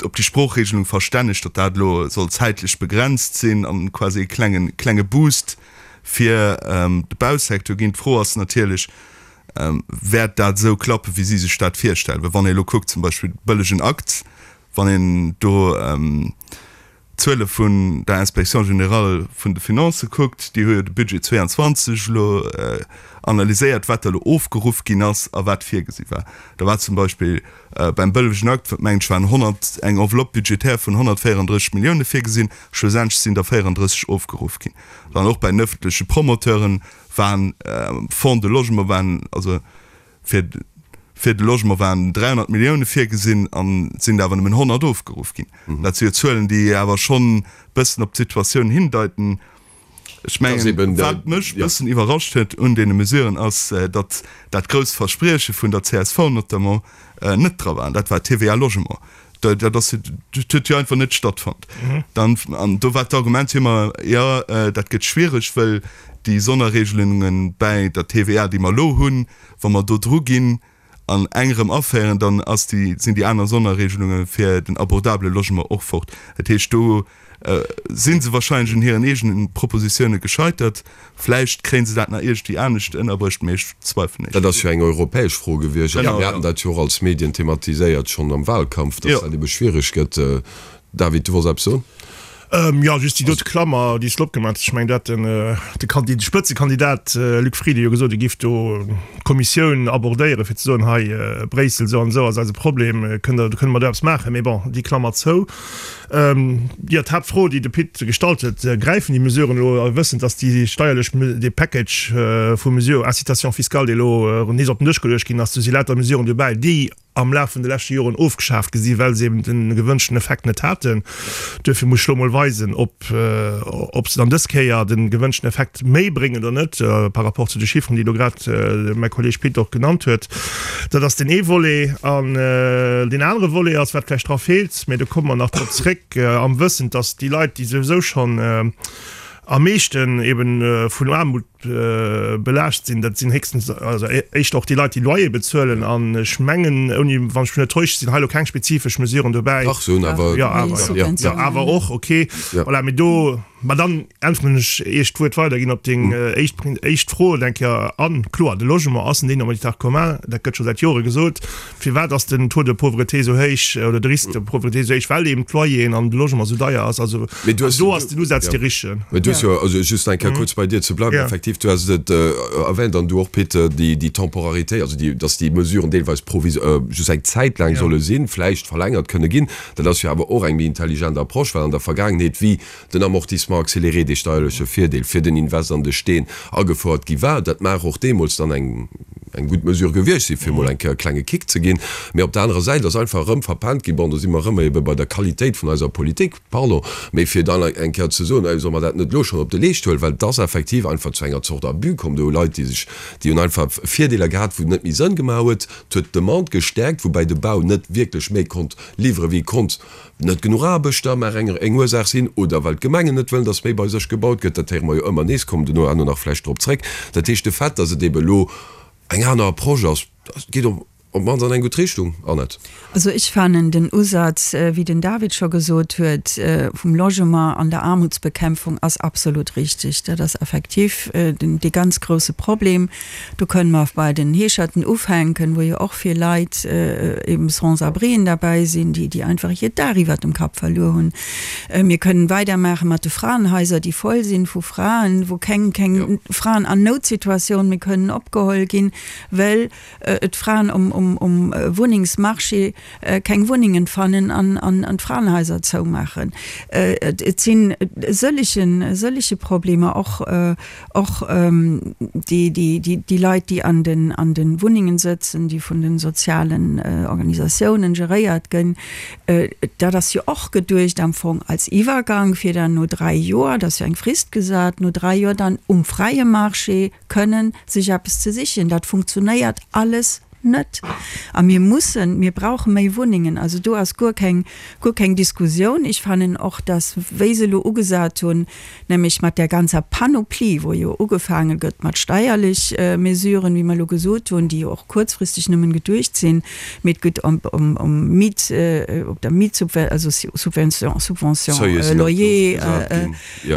op déi Sproochregelung verstännegt, datt dat elo soll zäitlech begrenzt sinn an quasi e klengen, klenge Boost fir de Bausecteur ginn. D'Fro ass natierlech, Wäert dat esou klappen, wéi si sech dat virstellen? Well wann ee elo kuckt, zum Beispill de bëllegen Akt, wann een do d'Zuele vun der Inspection générale vun de Finances kuckt, déi hu jo de Budget 22 elo analyséiert, wat da elo ofgeruff ginn ass a wat virgesi war. Da war zum Beispill beim bëllegen Akt, mengen ech, waren 100, eng Enveloppe budgétaire vun 134 Millioune virgesinn, schlussendlech sinn der 34 ofgeruff ginn. Dann och bei den ëffentleche Promoteuren waren, Fonds de Logement waren, also Fir fir de Logement waren 300 Millioune virgesinn an et sinn der awer nëmmen 100 ofgeruff ginn. Dat si jo Zuelen, déi awer schonn bëssen op d'Situatioun hindeiten. Ech mengen, wat mech bëssen iwwerrascht huet un deene Mesuren, ass, datt dat grousst Versprieche vun der csv notamment net dra war, an dat war d'TVA Logement. Dat ass, dat huet jo einfach net stattfonnt. Dann, an do war d'Argument jo ëmmer, jo, dat gëtt schwiereg, wëll déi Sonnerregelunge bäi der TVA, déi mer elo hunn, wa mer do dru ginn. An eng erëm aféieren, dann ass déi, sinn déi aner Sonnerregelunge fir den abordabele Logement och fort. Dat heescht, do si se wahrscheinlech un hiren eegene Propositioune gescheitert. Vläicht kréie se dat nach iergendwéi anescht ënnerbruecht, mee ech zweifelen Dat ass jo eng europäesch Fro gewiescht. A mir haten dat jo och als Medien thematiséiert schonn am Wahlkampf, datt dat ebe schwiereg gëtt. David, du wolls eppes soen? Jo, just déi dote Klammer, déi s de opgemaach hues. Ech mengen, do hat den, de Kandi, de Spëtzekandidat Luc Frieden jo gesot, e giff do d'Kommissioun abordéieren, fir ze soen, hei Bréissel, esou an esou ass eise Problem, kënnt Der, kënne mer do eppes maachen? Mee bon, déi Klammer zou. Jo, d'Haaptfro, déi de Pit gestallt huet, Gräifen déi Mesuren elo, wëssend, datt déi steierlech, dee Package vu Mesure, Incitation fiscale, dee elo nees op den Dësch geluecht ginn ass, do si lauter Mesuren dobäi, déi am Laf vun de leschte Joren ofgeschaaft gi sinn, well se eben de gewënschten Effekt net haten. Duerfir muss ech elo mol weisen, ob, ob se dann dës Kéier de gewënschten Effekt méi bréngen oder net, par rapport zu de Chiffren, déi elo grad mäi Kolleeg Pit och genannt huet. Dat ass deen ee Volet. An deen anere Volet ass, wat vläicht dra feelt, mä do komme mer nach drop zréck, am Wëssen, dass déi Leit, déi souwisou schonn am meeschten eben vun Aarmut belaascht sinn, dat sinn héchstens, also éischter och déi Leit, déi Loyer bezuelen. An ech mengen, ouni, wann ech mech net täusche, sinn hei elo keng spezifesch Mesuren dobäi. Dach, se hunn awer. Jo, awer, jo, jo, awer och, okay. Voilà, mee do, ma dann äntweren ech, ier ech d'Wuert weiderginn, op deng éischt, éischt Fro, eng Kéier an. Kloer, de Logement ass en dénominateur commun, dat gëtt scho säit Jore gesot. Firwat ass den Taux de pauvreté esou héich oder de Risque de pauvreté esou héich? Well eben d'Loyeren an de Logement esou deier ass. Also do ass den Usaz dee richtegen. Mee du hues jo, also just eng Kéier kuerz bei dir ze bleiwen, effektiv, du has et erwähnt an du och, Pit, déi Temporarité, also déi, dass déi Mesuren deelweis provis-, just eng Zäit laang solle sinn, vläicht verlängert kënne ginn. Dat ass jo awer och eng méi intelligent Approche, well an der Vergaangenheet, wéi den Amortissement accéléré, dee steierleche Virdeel fir den Invest an de Steen, agefouert gi war. Dat mag och deemools dann eng eng gutt Mesure gewiescht sinn, fir emol eng Kéier e klenge Kick ze ginn. Mee op der anerer Säit ass einfach erëm verpennt ginn, bon, do si mer erëm ebe bei der Qualitéit vun eiser Politik, pardon, mee fir dann eng Kéier ze soen, solle mer dat net elo schonn op de Leescht huelen, well et ass effektiv einfach zu enger Zort Abus komm. Do hu Leit, déi sech, déi hunn einfach Virdeeler gehat, wou et net méi Sënn gemaach huet. Et huet d'Demande gestäerkt, woubäi de Bau net wierklech méi konnt liwweren, wéi e konnt. Net genuch Aarbechter mag eng eng Ursaach sinn, oder well d'Gemengen net wëllen, datt méi bei sech gebaut gëtt. Dat héiere mer jo ëmmer nees, kommen duerno herno nach vläicht drop zréck. Dat heescht, de Fait, datt et ebe elo eng aner Approche ass, geet op op d'mannst an eng gutt Richtung, Annette. Also ech fannen den Usaz, wéi den David scho gesot huet, vum Logement an der Aarmutsbekämpfung ass absolut richtig. Dat ass effektiv den dee ganz grouse Problem. Do kënnen mer bei den Heescherten ufänken, wou jo och vill Leit, eben Sans-abrien derbäi sinn, déi, déi einfach hiert Daach iwwert dem Kapp verluer hunn. Mir kënnen weidermaache mat de Fraenhaiser, déi voll sinn vu Fraen, wou keng, keng Fraen an Noutsituatioun méi kënnen opgeholl ginn, well d'Fraen um, um, um Wunnengsmarché keng Wunnengen fannen an, an, an d'Fraenhaiser zoumaachen. Et sinn sëllegen, sëllege Problemer, och, Och déi Leit, déi an de Wunnengen sëtzen, déi vun de sozialen Organisatiounen geréiert ginn, dat ass jo och geduecht am Fong als Iwwergang, fir dann no 3 Joer, dat ass jo eng Frist gesat, no 3 Joer dann um fräie Marché kënnen sech eppes ze sichen. Dat funktionéiert alles net. A mir mussen, mir brauche méi Wunnengen. Also do ass guer keng, guer keng Diskussioun. Ech fannen och, dass, wéi se elo ugesat hunn, nämlech mat där ganzer Panoplie, wou jo ugefaange gëtt mat steierlech Mesuren, wéi mer elo gesot hunn, déi jo och kuerzfristeg nëmmen geduecht sinn, mee et gëtt ëm, ëm, ëm Miet, op der Mietsubven-, also Subvention, Subvention loyer,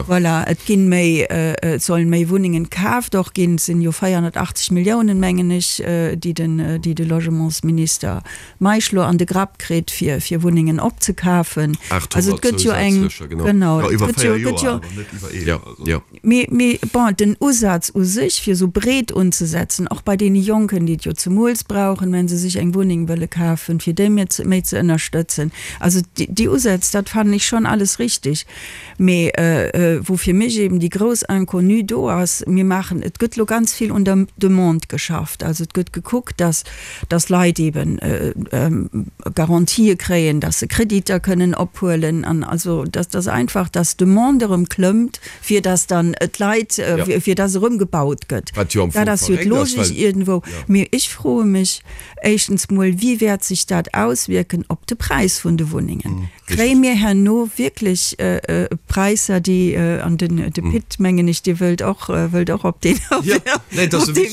voilà, et ginn méi, et sollen méi Wunnengen kaaft och ginn, et sinn jo 480 Milliounen, mengen ech, déi den, déi de Logementsminister Meisch lo an de Grapp kritt, fir, fir Wunnengen opzekafen. Also et gëtt jo eng, genau, et gëtt jo, gëtt jo, mee, mee bon, den Usaz u sech, fir esou breet unzesetzen, och bei deene Jonken, déi et jo zemools brauchen, wenn se sech eng Wunneng wëlle kafen, fir déi méi ze, méi ze ënnerstëtzen. Also déi Usätz, dat fannen ech schonn alles richtig. Mee wou fir mech eben déi grouss Inconnue do ass, mir maachen, et gëtt elo ganz vill un der Demande geschafft. Also et gëtt gekuckt, dass, dass Leit eben Garantië kréien, dass se Kreditter kënnen ophuelen an also dass, dass einfach, dass d'Demande erëm klëmmt, fir dass dann d'Leit, fir dass erëm gebaut gëtt. Dat ass jo d'Logik iergendwou. Mee ech froe mech éischtens mol, Wéi wäert sech dat auswierken op de Präis vun de Wunnengen? Kréie mir herno wierklech Präisser, déi, an den de Pit, mengen ech, Dir wëllt och, wëllt och op deen, op dee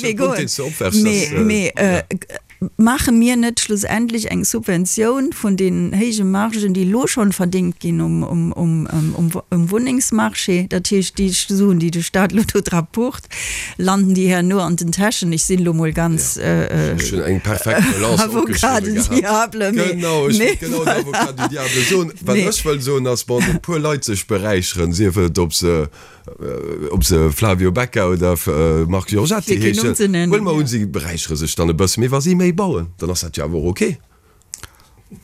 Wee goen, mee, mee. Maache mir net schlussendlech eng Subventioun vun deenen héije Margen, déi elo schonn verdéngt ginn um Wunnengsmarché? Dat heescht, déi Suen, déi de Stat elo do dra pucht, landen déi herno an den Täschen. Ech sinn elo mol ganz Ech hunn eng perfekt Relance Avocat opgeschriwwe du gehat. diable, mee Genau, ech mee wollt genau den voilà. Avocat du diable soen. Wat Mee. ech wëll soen ass, wann e puer Leit sech beräicheren, sief et ob se Ob se Flavio Becca oder Marc Giorgetti Fir keen Numm heeschen, ze nennen, huele mer ja. un, si beräichere sech dann e bësse. Mee wa si méi bauen, dann ass dat jo awer och ok.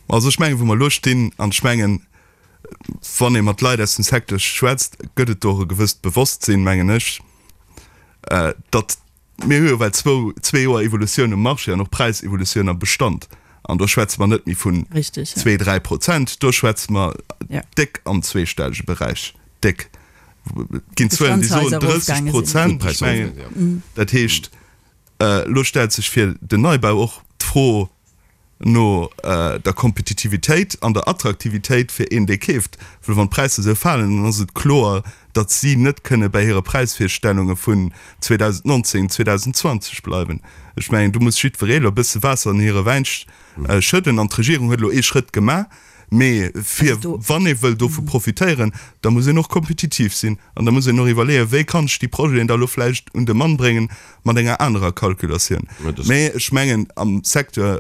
Also ech mengen, wou mer elo stinn, an ech mengen, wann ee mat Leit aus dem Secteur schwätzt, gëtt et do och e gewësst Bewosstsinn, mengen ech, datt Mir hu jo well zwou, zwee Joer Evolutioun um Marché an och Präisevolutioun am Bestand. An do schwätze mer net méi vun zwee, 3%, do schwätze mer déck am zweestellege Beräich, déck. Et ginn Zuelen, déi soen 30%. Ech mengen, dat heescht, elo stellt sech fir den Neibau och d'Fro, no der Kompetitivitéit an der Attraktivitéit fir een, dee keeft. Well wann d'Präisser esou falen, dann ass et kloer, datt si net kënne bäi hire Präisvirstellunge vun 2019, 2020 bleiwen. Ech mengen, do muss jiddweree elo e bësse Waasser an hire Wäin schëdden. An d'Regierung huet elo ee Schrëtt gemaach. Mee fir, wann ee wëll dovu profitéieren, da muss een och kompetitiv sinn an da muss een och iwwerleeën, wéi kann ech déi Projeten da elo vläicht un de Mann bréngen mat enger anerer Calculatioun. Mee ech mengen, am Secteur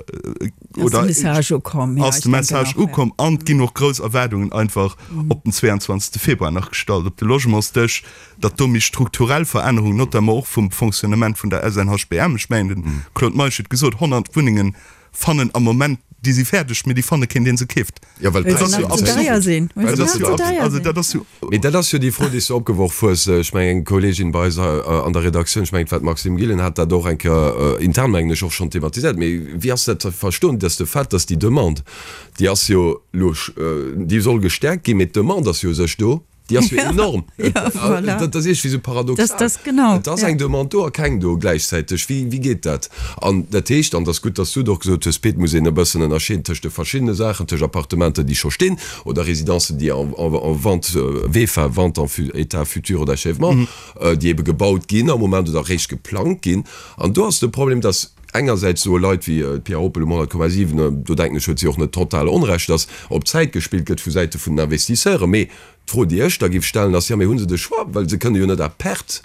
oder ass de Message ukomm an et ginn och grouss Erwaardungen einfach op den 22. Februar nach gestallt op de Logementsdësch, datt do méi strukturell Verännerungen, notamment och vum Fonctionnement vun der SNHBM, ech mengen, de Claude Meisch huet gesot, 100 Wunnengen fannen am Moment, déi si fäerdeg, mee déi fanne keen, dee se keeft. Jo, well Well se nach ze deier sinn. Well se nach ze deier sinn. Dat ass jo. Mee dat ass jo déi Fro, déi s du opgeworf hues. Ech mengen, eng Kolleegin bei eis an der Redaktioun, ech mengen, et war d'Maxime Gillen, hat dat och eng Kéier intern, mengen ech, och schonn thematiséiert. Mee wéi ass dat ze verstoen, dass de Fait, dass déi Demande, déi ass jo elo, déi soll gestäerkt ginn, mee d'Demande ass jo u sech do. Déi ass jo enorm. Ja, voilà. Dat ass iergendwéi esou paradoxal. Das, das, genau. Et ass eng Demande do a keng do gläichzäiteg. Wéi, wéi geet dat? An dat heescht, an et ass gutt, dass du et och gesot hues, Pit, muss een e bëssen ënnerscheeden tëscht de verschiddene Saachen, tëscht Appartementer, déi scho stinn, oder Residencen, déi en, en, en vente, VEFA, vente en état futur d'achèvement, déi ebe gebaut ginn am Moment oder eréischt geplangt ginn. An do ass de Problem, dass engersäits soe Leit wéi d'Pia Oppel um 100,7, do denken ech, huet si och net total Onrecht, dass op Zäit gespillt gëtt vu Säite vun den Investisseuren. Mee d'Fro, déi ech da géif stellen, ass, Jo, mee hu se de Choix? Well se kënne jo net à perte,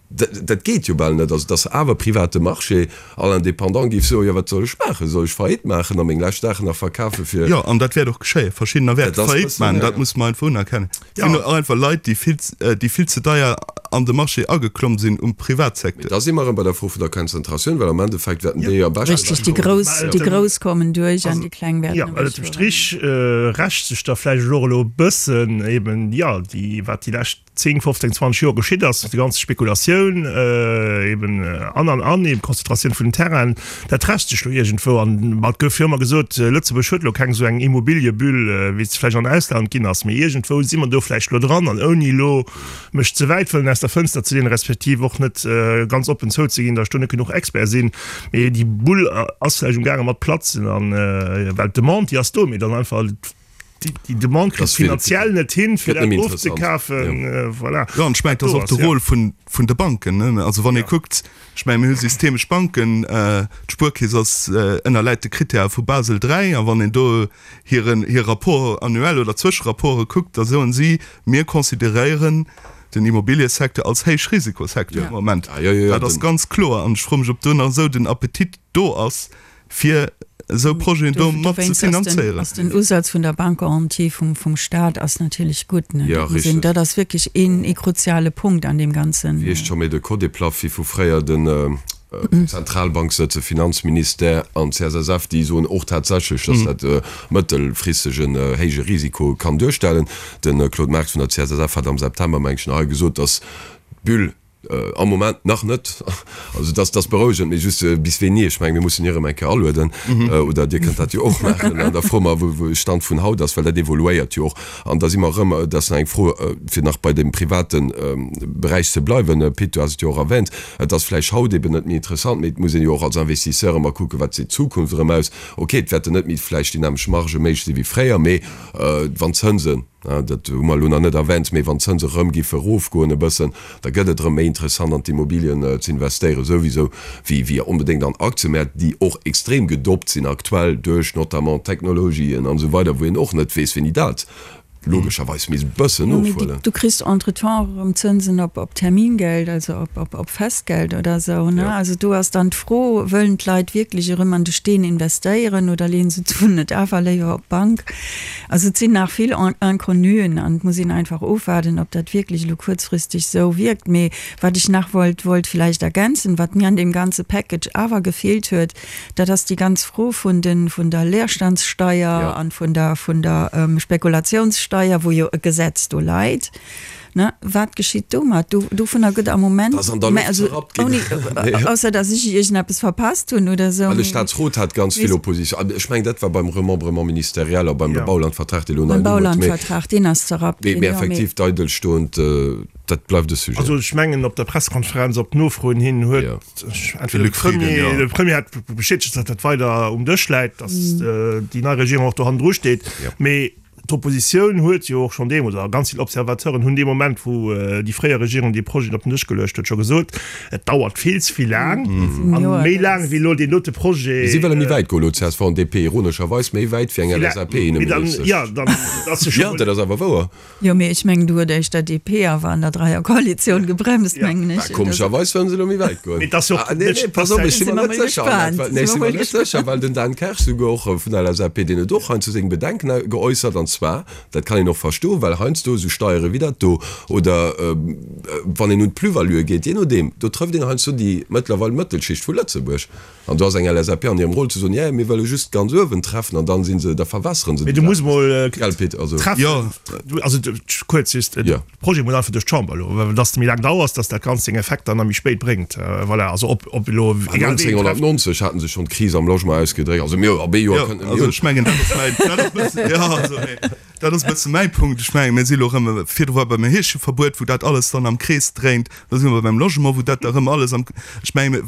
dat geet jo bal net. Also, dass awer private Marché, all Indépendant géif soen, Jo, wat soll ech maachen? Soll ech Faillite maachen a meng lescht Saachen nach verkafe fir. Jo, an dat wäert och geschéien. Verschiddener wäerte Faillite maachen, dat muss mer einfach unerkennen. Et sinn och einfach Leit, déi vill, déi vill ze deier an de Marché ageklomm sinn um Mee Privatsecteur. da si mer erëm bei der Fro vun der Konzentratioun, well am Endeffekt wäerten déi am beschten Richtig, déi ewechkommen. Grouss, déi Grouss kommen duerch an déi Kleng wäerten Jo, well ënnert dem ewechfueren. Strich rächt sech da vläicht elo och elo e bëssen eben, jo, déi, wat déi lescht 10, 15, 20 Joer geschitt ass, déi ganz Spekulatioun eben an an an, eben d'Konzentratioun vun den Terrainen, dat rächt sech elo iergendwou. An et gouf jo ëmmer gesot, Lëtzebuerg huet elo keng esou eng Immobiliëbulle, wéi se vläicht an Ausland ginn ass, mee iergendwou si mer do vläicht elo dran. An ouni elo mech ze wäit wëllen aus der Fënster ze leenen, respektiv och net ganz oppen zouzeginn, datt ech do net genuch Expert sinn, mee déi Bull ass vläicht umgaange mat platzen an, well d'Demande, déi ass do, mee dann einfach déi Demande kritt finanziell net hin, fir dat ofzekafen. Voilà. Jo, an ech mengen, et ass och de Rôle vun, vun de Banken, ne. Also wann ee kuckt, ech mengen, mir hu systemesch Banken, d'Spuerkeess ass, ënnerläit de Krittäre vu Basel III, a wann een do hiren, hir Rapport annuel oder Zwëscherapporte kuckt, da soen si, mir consideréieren den Immobiliësecteur als Héichrisikosecteur am Moment. Dat ass ganz kloer. An ech froe mech, ob do nach esou den Appetit do ass, fir esou Projeten do mat ze finanzéieren. Ass den Usaz vun der Bankgarantie vum vum Staat ass natierlech gutt, ne? Ja, Dat muss een, richtig. dat ass wierklech een ee kruziale Punkt an deem ganzen. Wéi heescht scho méi de Codeplaffi vu fréier, den Zentralbank sëtze Finanzministère an d'CSSF, déi soen och tatsächlech, datt dat mëttelfristeg en héije Risiko kann duerstellen. De Claude Marx vun der CSSF hat am September, meng ech, nach hei gesot, datt d'Bulle, Am Moment nach net. Also dat ass berouegend, mee just bis wéini? Ech mengen, mir mussen hie erëm eng Kéier alueden, oder Dir kënnt dat jo och maachen, an da froe mer, wou de Stand vun haut ass, well dat evoluéiert jo och. An da si mer erëm, dat ass nach eng Fro, fir nach bei deem private Beräich ze bleiwen, Pit, du has et jo och erwähnt, et ass vläicht haut eben net méi interessant, mee et muss een jo och als Investisseur ëmmer kucken, wat seet d'Zukunft erëm aus. Okay, et wäerten net méi vläicht déi nämmlecht Margë méiglech si wéi fréier, mee wann d'Zënsen. Dat hu mer elo nach net erwänt, mee wann d'Zënse erëm giffe erofgoen e bëssen, da gëtt et erëm méi interessant an d'Immobilien ze investéieren souwisou wéi wéi onbedéngt an Aktiëmäert, déi och extrem gedoppt sinn aktuell duerch notamment d'Technologien an esou weider, wou een och net weess wéini dat logescherweis misst e bëssen Jo, mee ofhuelen. du kriss entretemps och erëm Zënsen op op Termingeld, also op op op Festgeld oder esou, ne? Also do ass dann d'Fro, Wëllen d'Leit wierklech erëm an de Steen investéieren oder leeën se d'Suen net awer léiwer op d'Bank? Also et sinn nach vill Inconnuen an et muss een einfach ofwaarden, ob dat wierklech elo kuerzfristeg esou wierkt. Mee wat ech nach wollt wollt vläicht ergänzen, wat mir an deem ganze Package awer gefeelt huet, dat ass déi ganz Fro vun de vun der Leerstandssteier an vun der vun der Spekulationssteier, wou jo e Gesetz do leit. Ne, wat geschitt domat? Do, dovunner gëtt am Moment, Dat ass an der Loft also zerrappt ginn. ouni, ausser datt ech iergendeppes verpasst hunn oder esou. Well de Staatsrot hat ganz vill Opposition. An ech mengen, dat war beim Remembrement ministériel a beim Ja. Baulandvertrag, dee elo nei Beim Numm huet. Mee, Baulandvertrag, deen ass zerrappt mee, ginn, mee jo, mee. effektiv, d'Eidelstoend, dat bleift e Sujet. Also ech mengen, op der Pressekonferenz op Nofroen hin huet Ja. entweder de Luc Frieden, Premier, ja. de Premier hat bestätegt, datt dat weider um Dësch läit, datt déi nei Regierung och do hannendru steet. Ja. Mee D'Oppositioun huet jo och schonn deemools, a ganz vill Observateuren hunn dee Moment, wou déi fréier Regierung dee Projet op den Dësch geluecht huet, scho gesot, et dauert vill ze vill laang a méi laang wéi elo deen dote Projet. Si wëlle méi wäit goen elo, csv an DP, ironescherweis méi wäit wéi eng LSAP-Inneministesch. Jo, dann ass jo scho. Jo, dat ass awer wouer. Jo, mee ech mengen, do huet éischter DP awer an der Dreierkoalitioun gebremst, mengen ech. Bah, komescherweis wëllen se elo méi wäit goen. Mee et ass jo och Ah, nee, nee, pass op, ech si mer net sécher. Nee, ech si mer net sécher, well den Dan Kersch souguer och vun der LSAP, deen huet och heiansdo seng Bedenken geäussert, an zwar, dat kann een och verstoen, well heiansdo esou Steiere wéi dat do, oder wann een un d'Plus-valuë geet, jee nodeem, do trëfft een heiansdo déi mëttlerweil Mëttelschicht vu Lëtzebuerg. An do ass eng LSAP an hirem Rôle ze soen, jä, mir wëlle just ganz uewen treffen, an dann si se, da verwässere se Mee déi du muss Saach. mol Gell, Pit? Also. treffen, also kuerz just, de Projet muss einfach duerch d'Chamber elo, well dass de méi laang dauers, dass dat Ganzt seng Effekter nach méi spéit bréngt. Voilà, also ob, ob elo egal ween trefft. 1990 haten se schonn d'Kris am Logement ausgedréckt. Also mir, op ee Joer kënnten mir. Also ech mengen, dat ass mäin, dat ass e bëssen, jo, also mee dat ass e bësse mäi Punkt. Ech mengen, mir si elo erëm, virdru war beim Heescheverbuet, wou dat alles dann am Krees dréint, elo si mer beim Logement, wou dat da erëm alles am, ech mengen,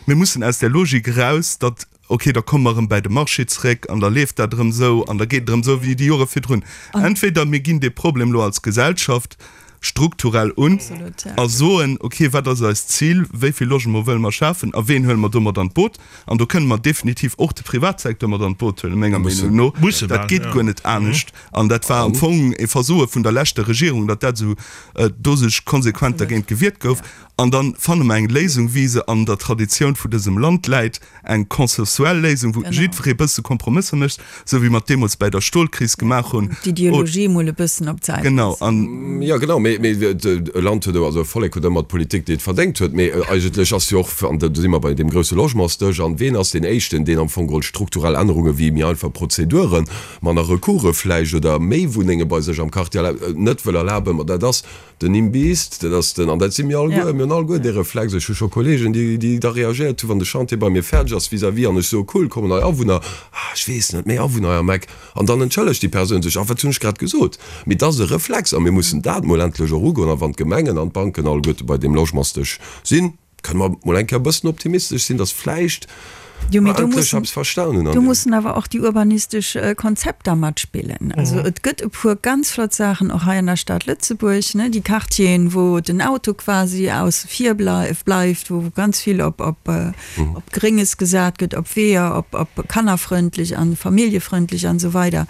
mir mussen aus där Logik eraus, datt Ok, da komme mer erëm bäi de Marché zeréck an da leeft dat erëm esou an da geet et erëm esou wéi déi Jore virdrun. Entweder mir ginn dee Problem elo als Gesellschaft strukturell un a soen, ok, wat ass eist Zil, wéi vill Logement wëlle mer schafen a ween huele mer do mat an d'Boot? An do kënne mer definitiv och de Privatsecteur mat an d'Boot huelen, menger Meenung no. Dat geet guer net anescht an dat war am Fong e Versoe vun der leschter Regierung, datt dat esou do sech konsequent dergéint gewiert gouf. An da fanne mer eng Léisung, wéi se an der Traditioun vu dësem Land läit, eng consensuell Léisung, wou jiddweree e bësse Kompromësser mécht, esou wéi mer et deemools bäi der Stolkris gemaach hunn. D'Ideologie emol e bëssen op d'Säit Genau. loossen. An. Jo, genau, mee e Land huet, also e Vollek huet ëmmer d'Politik, déi et verdéngt huet. Mee eigentlech ass jo och, an do si mer bei deem grousse Logementsdësch, an ween ass deen Éischten, deen am Fong geholl strukturell Ännerunge wéi méi einfach Prozeduren, manner Recourse vläicht oder méi Wunnenge bei sech am Quartier net wëll erlaben? Ma dat ass Den Imbiss, dat ass den, an dat si mir alleguer, mir hunn alleguer dee Reflex, ech hu scho Kollegen, déi, déi da reagéiert hunn, wann de Chantier bei mir fäerdeg ass vis-à-vis an ech soe cool, kommen nei Awunner, ah, ech weess net, méi Awunner hei am Eck, an dann entschëllegt déi Persoun sech, ah, wat hunn ech grad gesot? Mee dat ass e Reflex a mir mussen dat mol endlech och ugoen a wann d'Gemengen an d'Banken alleguerte bei deem Logementsdësch sinn, Kënne mer mol eng Kéier e bëssen optimistesch sinn, dass vläicht Jo, mee mer do endlech mussen, eppes verstan hunn an do deem. mussen awer och déi urbanistesch Konzepter matspillen. Also et gëtt e puer ganz flott Saachen och hei an der Stad Lëtzebuerg, ne, déi Quartieren, wou den Auto quasi ausse vir bleift, wou ganz vill op, op, op Grénges gesat gëtt, op Weeër, op, op kannerfrëndlech an familljefrëndlech an esou weider.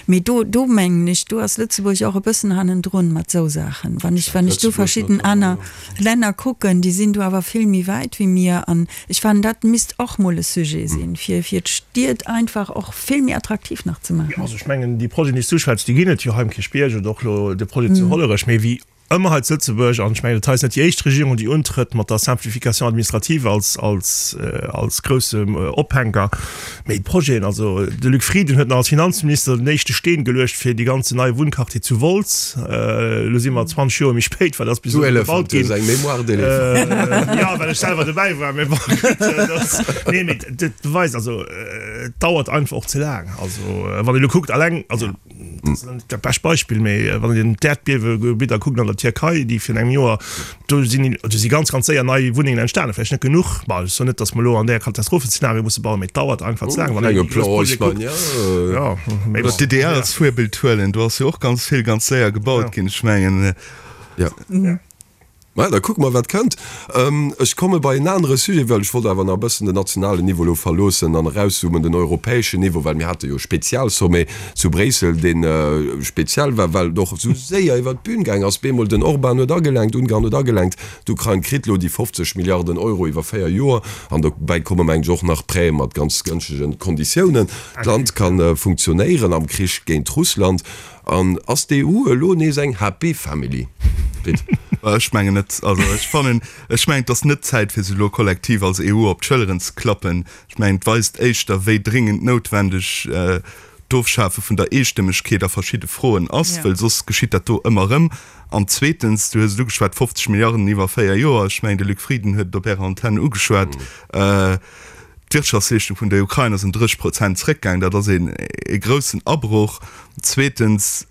Mee do, do mengen ech, do ass Lëtzebuerg och e bëssen hannendrun mat esou Saachen. Wann ech, wann ech do Lëtzebuerg verschidden notamment, aner. jo. Länner kucken, déi sinn do awer vill méi wäit wéi mir. An ech fannen, dat misst och mol e Sujet sinn, fir fir d'Stied einfach och vill méi attraktiv nach ze maachen. Jo, also ech mengen, déi Projeten, déi s du uschwätz, déi ginn et jo hei um Kierchbierg oder och elo de Projet zu Hollerech. Mee wéi ëmmer hei zu Lëtzebuerg, an ech mengen, dat hei ass net déi éischt Regierung, déi untrëtt mat der Simplification administrative als, als, als groussem Ophänker, mee d'Projeten, also de Luc Frieden huet nach als Finanzminister den éischte Steen geluecht fir dee ganzen neie Wunnquartier zu Wolz. Elo si mer 20 Joer méi spéit, well ass bis Du elo Elefant, gebaut du hues ginn. eng Mémoire d'éléphant. Jo, well ech selwer dobäi war, mee bon, gutt, dat ass, nee, mee dat beweist, also et dauert einfach och ze laang. Also wann een elo kuckt, alleng, also. dat ass net dat bescht Beispill, mee wann een d'Äerdbiewegebidder kuckt an der Tierkei, déi virun engem Joer, do sinn, do si ganz, ganz séier nei Wunnengen entstanen, vläicht net genuch, bon, ech soen net, datt mer elo an där Katastrophenzeenario musse bauen, mee et dauert einfach ze laang, wann een déi grouss Projete kuckt. Jo, mee bon. Oder d'DDR als Virbild huelen, do ass jo och ganz vill ganz séier gebaut ginn, ech mengen. Jo. Maja, da kucke mer, wat kënnt. Ech komme bei en anere Sujet, well ech wollt awer nach e bëssen den nationalen Niveau elo verloossen an erauszoomen, den europäeschen Niveau, well mir hate jo e Spezialsommet zu Bréissel, dee speziell war, well et och esou séier iwwert d'Bün gaang ass. Bemol den Orban huet agelenkt, Ungarn huet agelenkt, d'Ukrain kritt elo déi 50 Milliarden Euro iwwer 4 Joer an dobäi komme meng ech och nach Prêtë mat ganz gënschtegen Konditiounen. D'Land ka funktionéieren am Krich géint Russland. An ass d'EU elo nees eng happy family? Pit. Ech mengen net. Also ech fannen, ech mengen et ass net d'Zäit fir sech elo kollektiv als EU op d'Schëlleren ze klappen. Ech mengen et weist éischter wéi dringend noutwendeg d'Ofschafe vun der Eestëmmegkeet a verschidde Froen ass, well soss geschitt dat do ëmmer erëm. An zweetens, du hues et ugeschwat, 50 Milliarden iwwer 4 Joer, ech mengen de Luc Frieden huet et op Ärer Antenn ugeschwat, D'Wirtschaftsleeschtung vun der Ukrain ass ëm 30 Prozent zréckgaang. Dat ass ee groussen Abroch. Zweetens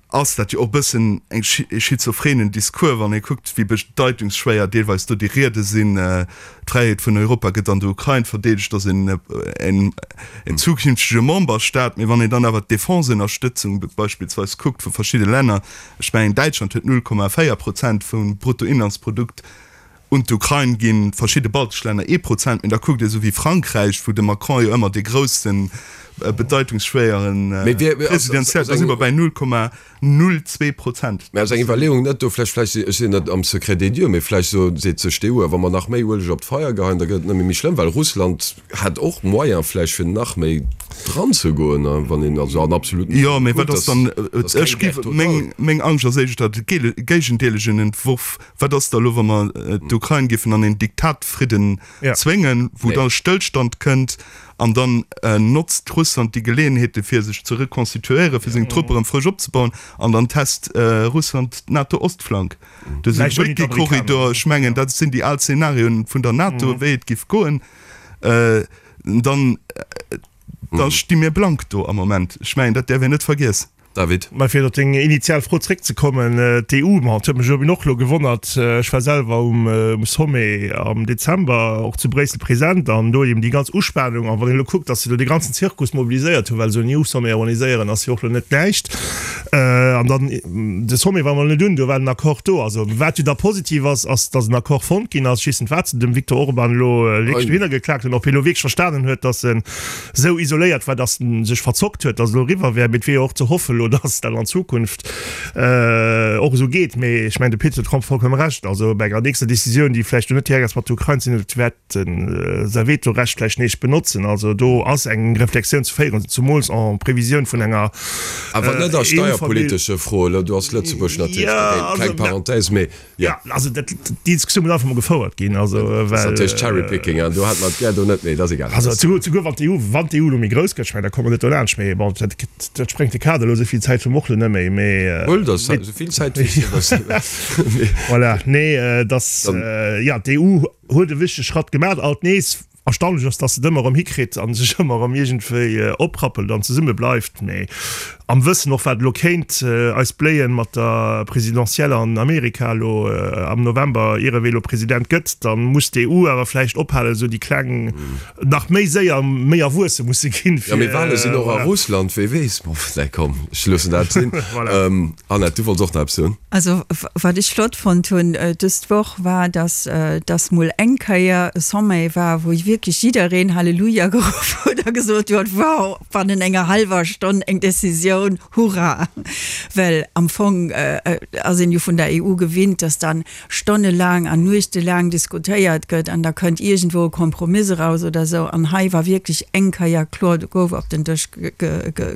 ass dat jo och e bëssen e schizophrenen Discours, wann ee kuckt, wéi bedeitungsschwéier deelweis do déi Riede sinn. D'Fräiheet vun Europa gëtt an der Ukrain verdeedegt, ass en zukünftege Memberstaat. Mee wann een dann awer d'Defenseënnerstëtzung beispillsweis kuckt vu verschidde Länner, ech mengen Däitschland huet 0,4 Prozent vum Bruttoinlandsprodukt Un d'Ukrain ginn verschidde baltesch Länner ee Prozent, mee da kuckt ee sou wéi Frankräich, wou de Macron jo ëmmer dee groussen, bedeitungsschwéieren Presidentiell, da si mer bäi 0,02 Prozent. Mä ass eng Iwwerleeung net do vläicht, vläicht, ech sinn net am Secret des dieux, mee vläicht so seet sech d'EU, wa mer nach méi Ueleg op d'Feier geheien, da gëtt et nëmme méi schlëmm, well Russland hätt och Moyen vläicht fir nach méi dran ze goen, wann een also an absoluten Jo, mee wat ass dann, ech géif, meng, meng Angscht ass éischter de géigendeelegen Entworf, Wat ass da elo, wa mer d'Ukrain géifen an een Diktatfridden zwéngen, wou da Stëllstand kënnt an dann notzt Russland déi Geleeënheete fir sech ze reconstituéieren, fir seng Truppe erëm frësch opzebauen an dann test Russland d'NATO-Ostflank. Dëse Brückekorridor, ech mengen, dat sinn déi al Zenarioen vun der NATO, wéi et géif goen. Dann da sti mir blank do am Moment. Ech mengen, dat däerf een net vergiessen. David. Mä fir op deng initial Fro zréckzekommen, d'EU, ma et huet mech eben och elo gewonnert, ech war selwer um Sommet am Dezember och zu Bréissel present an do eben déi ganz Uspanung, an wann een elo kuckt, datt se do dee ganzen Zirkus mobiliséiert hunn, well esou en EU-Sommet organiséieren ass jo och elo net näischt, an dann de Sommet war mol net un, do war den Accord do. Also wat jo da positiv ass, ass datt en Accord fonnt ginn ass. Ech weess net wat se dem Viktor Orban elo wierklech dohinner geklaakt hunn, ob hie elo wierklech verstanen huet, datt en esou isoléiert war, dass en sech verzockt huet, dass et elo eriwwer wär. Mee et wier jo och ze hoffen elo, dass dat an Zukunft och esou geet. Mee ech mengen, de Pit huet vollkomme Recht. Also bei enger nächster Decisioun, déi vläicht elo net direkt ass mat der Ukrain ze dinn huet, wäert en säi Vetorecht vläicht nees benotzen. Also do ass eng Reflexioun ze féieren, zemools en Previsioun vun enger Awer net a steierpolitesche Froen. Do ass Lëtzebuerg natierlech dogéint. Kleng Parenthèse, mee Jo, also dat, déi Diskussioun muss einfach mol gefouert ginn. Also, well. Dat ass natierlech Cherry-picking, an do hat mer d'Gär do net, mee dat ass egal. Also souguer, souguer wann d'EU, wann d'EU elo méi grouss gëtt, ech mengen, da komme mer net dolaanscht, mee bon, dat, dat sprengt de Kader elo, esou vill Zäit hu mer och elo net méi, mee. Huel der esou vill Zäit wéi s de wëlls. Voilà, nee, dass, jo, d'EU huet e wichtege Schratt gemaach, alt nees. Erstaunlech ass, dass se et ëmmer erëm hikritt a sech ëmmer erëm iergendwéi oprappelt an zesumme bleift. Mee am Wëssen och, wat elo kéint eis bléien mat der Présidentielle an Amerika elo am November, ier ewéi elo President gëtt, da muss d'EU awer vläicht ophalen, esou déi Kleng nach méi séier méi erwuesse musse ginn, fir. Jo, mee Wale sinn och a Russland, wee weess. Bon, nee, komm, ech loossen dat sinn. Annette, du wollts och nach eppes soen? Also wat ech flott fonnt hunn dëst Woch war, dass dass mol eng Kéier e Sommet war, wou wierklech jiddereen Halleluja geruff huet a gesot huet, wow, bannen enger hallwer Stonn eng Decisioun, hurra! Well am Fong ass een jo vun der EU gewinnt, dass dann stonnelaang an nuechtelaang diskutéiert gëtt an da kënnt iergendwou e Kompromiss eraus oder esou. An hei war wierklech eng Kéier kloer, do gouf op den Dësch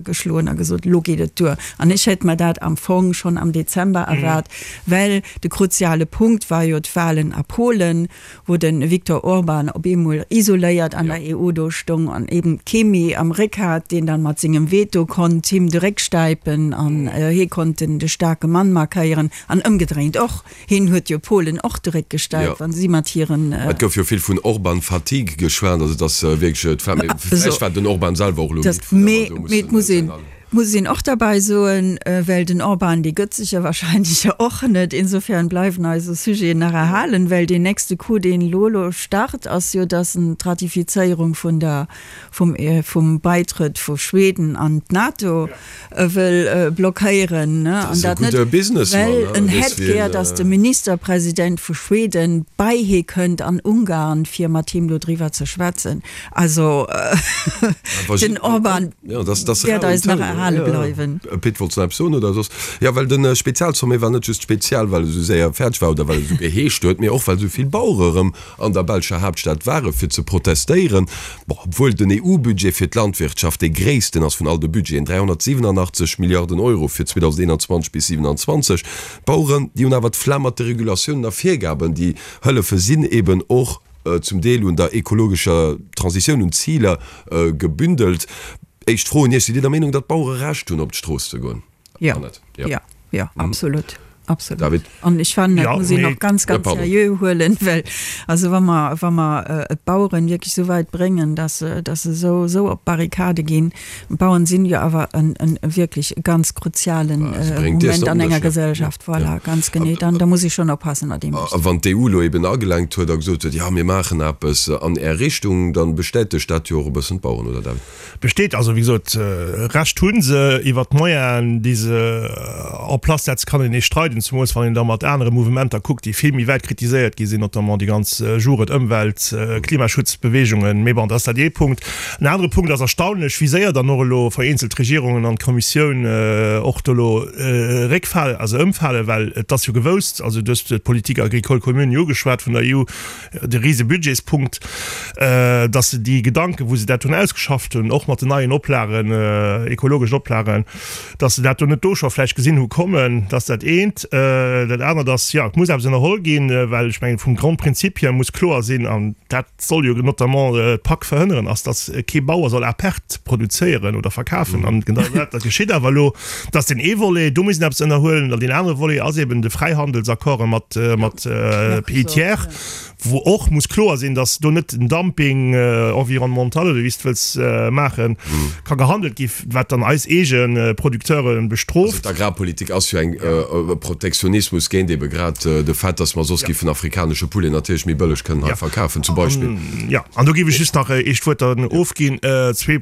geschloen a gesot, elo geet et duer. An ech hätt mer dat am Fong schonn am Dezember erwaart, well de kruziale Punkt war jo d'Wahlen a Polen, wou de Viktor Orban op eemol isoléiert an der EU do stoung an eben kee méi am Réck hat, deen dann mat sengem Veto konnt him de Réck stäipen an hie konnt den de staarke Mann markéieren an ëmgedréint och. Hien huet jo Polen och de Réck gestäipt, wa si mat hiren. Et gouf jo vill vun Orban-Fatigue geschwat, also et ass wierklech, et war, mee vläicht war den Orban selwer och elo midd vun ëmmer do mussen. Muss een och derbäi soen, well den Orban, dee gëtt sech jo wahrscheinlech jo och net. Insofern bleiwen eis esou Sujeten nach erhalen, well deen nächste Coup, deen elo elo start, ass jo, dass en d'Ratifizéierung vun der, vum, vum Baitrëtt vu Schweden an d'NATO wëll blockéieren, ne? An dat net, well en hätt gär, dass de Ministerpresident vu Schweden bei hie kënnt an Ungarn, fir mat him dodriwwer ze schwätzen. Also den Orban wäert eis nach erhale bleiwen. Pit, wollts de nach eppes soen oder soss? Jo, well de Spezialsommet war net just spezial, well e sou séier fäerdeg war oder well e sou geheescht huet, mee och well sou vill Bauere erëm an der belscher Haaptstad ware fir ze protestéieren. Bon, obwuel den EU-Budget fir d'Landwirtschaft dee gréissten ass vun all de Budgeten, 387 Milliarden Euro fir 2021 bis 2027. D'Baueren, déi hunn awer d'Flemm mat de Regulatiounen a Virgaben, déi hëllefe sinn eben och zum Deel un der ekologescher Transitioun, un Ziler gebündelt. Éischt Fro un Iech, Sidd Dir der Meenung, datt d'Bauere Recht hunn, op d'Strooss ze goen? Jo, jo, jo, absolut, absolut. David? An ech fannen, dat muss een och ganz, ganz seriö huelen, well also wa mer, wa mer d'Baueren wierklech esou wäit bréngen, datt se, datt se esou, esou op d'Barrikade ginn, D'Bauern sinn jo awer en, en wierklech ganz kruzialen Moment an enger Gesellschaft, voilà, ganz genee. Dann, da muss ee schonn oppassen, wat ee mécht. A wann d'EU elo eben agelenkt huet a gesot huet, jo, mir maachen eppes an Är Richtung, dann bestätegt dat jo och e bëssen d'Bauern, oder David? Besteet also, wéi gesot, Recht hu se. Iwwert d'Moyenen, déi se en place setzen, kann een nees streiden, zemools wann een da mat anere Mouvementer kuckt, déi vill méi wäit kritiséiert gi sinn, notamment déi ganz Jugend-, Ëmwelt-, Klimaschutzbewegungen. Mee bon, dat ass dat ee Punkt. En anere Punkt ass erstaunlech, wéi séier dann och elo vereenzelt Regierungen an d'Kommissioun och do elo réckfalen, also ëmfalen, well et ass jo gewousst, also du hues d'Politique agricole commune jo ugeschwat vun der EU, de rise Budgetspunkt, datt se déi Gedanken, wou se dat hunn ausgeschafft hunn, och mat den neien Oplagen, ekologeschen Oplagen, datt se dat do net do scho vläicht gesinn hu kommen. Dat ass dat eent. Dat anert ass, jo, et muss eppes ënnerholl ginn, well ech mengen, vum Grondprinzip hier muss kloer sinn, an dat, soll jo notamment d'PAK verhënneren, ass, datt kee Bauer soll à perte produzéieren oder verkafen. An genau dat geschitt awer elo. Dat ass deen ee Volet, do muss een eppes ënnerhuelen. An deen anere Volet ass eben de Fräihandelsaccorde mat mat Pays tiers, wou och muss kloer sinn, datt do net den Dumping environnemental oder wéi s de wëlls maachen, ka gehandelt gi wat dann eis eege Producteure bestrooft. Also d'Agrarpolitik ass jo eng e Protektionismus géint ebe grad de Fait, datt mer soss giffen afrikanesche Poulet natierlech méi bëlleg kënnen hei verkafen zum Beispill. Jo, an do géif ech just nach eescht Wuert dann ofginn. Zwee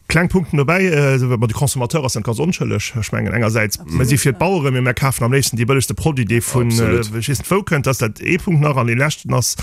kleng Punkten dobäi. Ma de Consommateur ass net ganz onschëlleg. Ech mengen engersäits, mir si fir d'Baueren, mee mir kafen am léifsten dee bëllegste Produit, dee vun ech weess net wou kënnt. Dat ass dat ee Punkt nach. An dee leschten ass,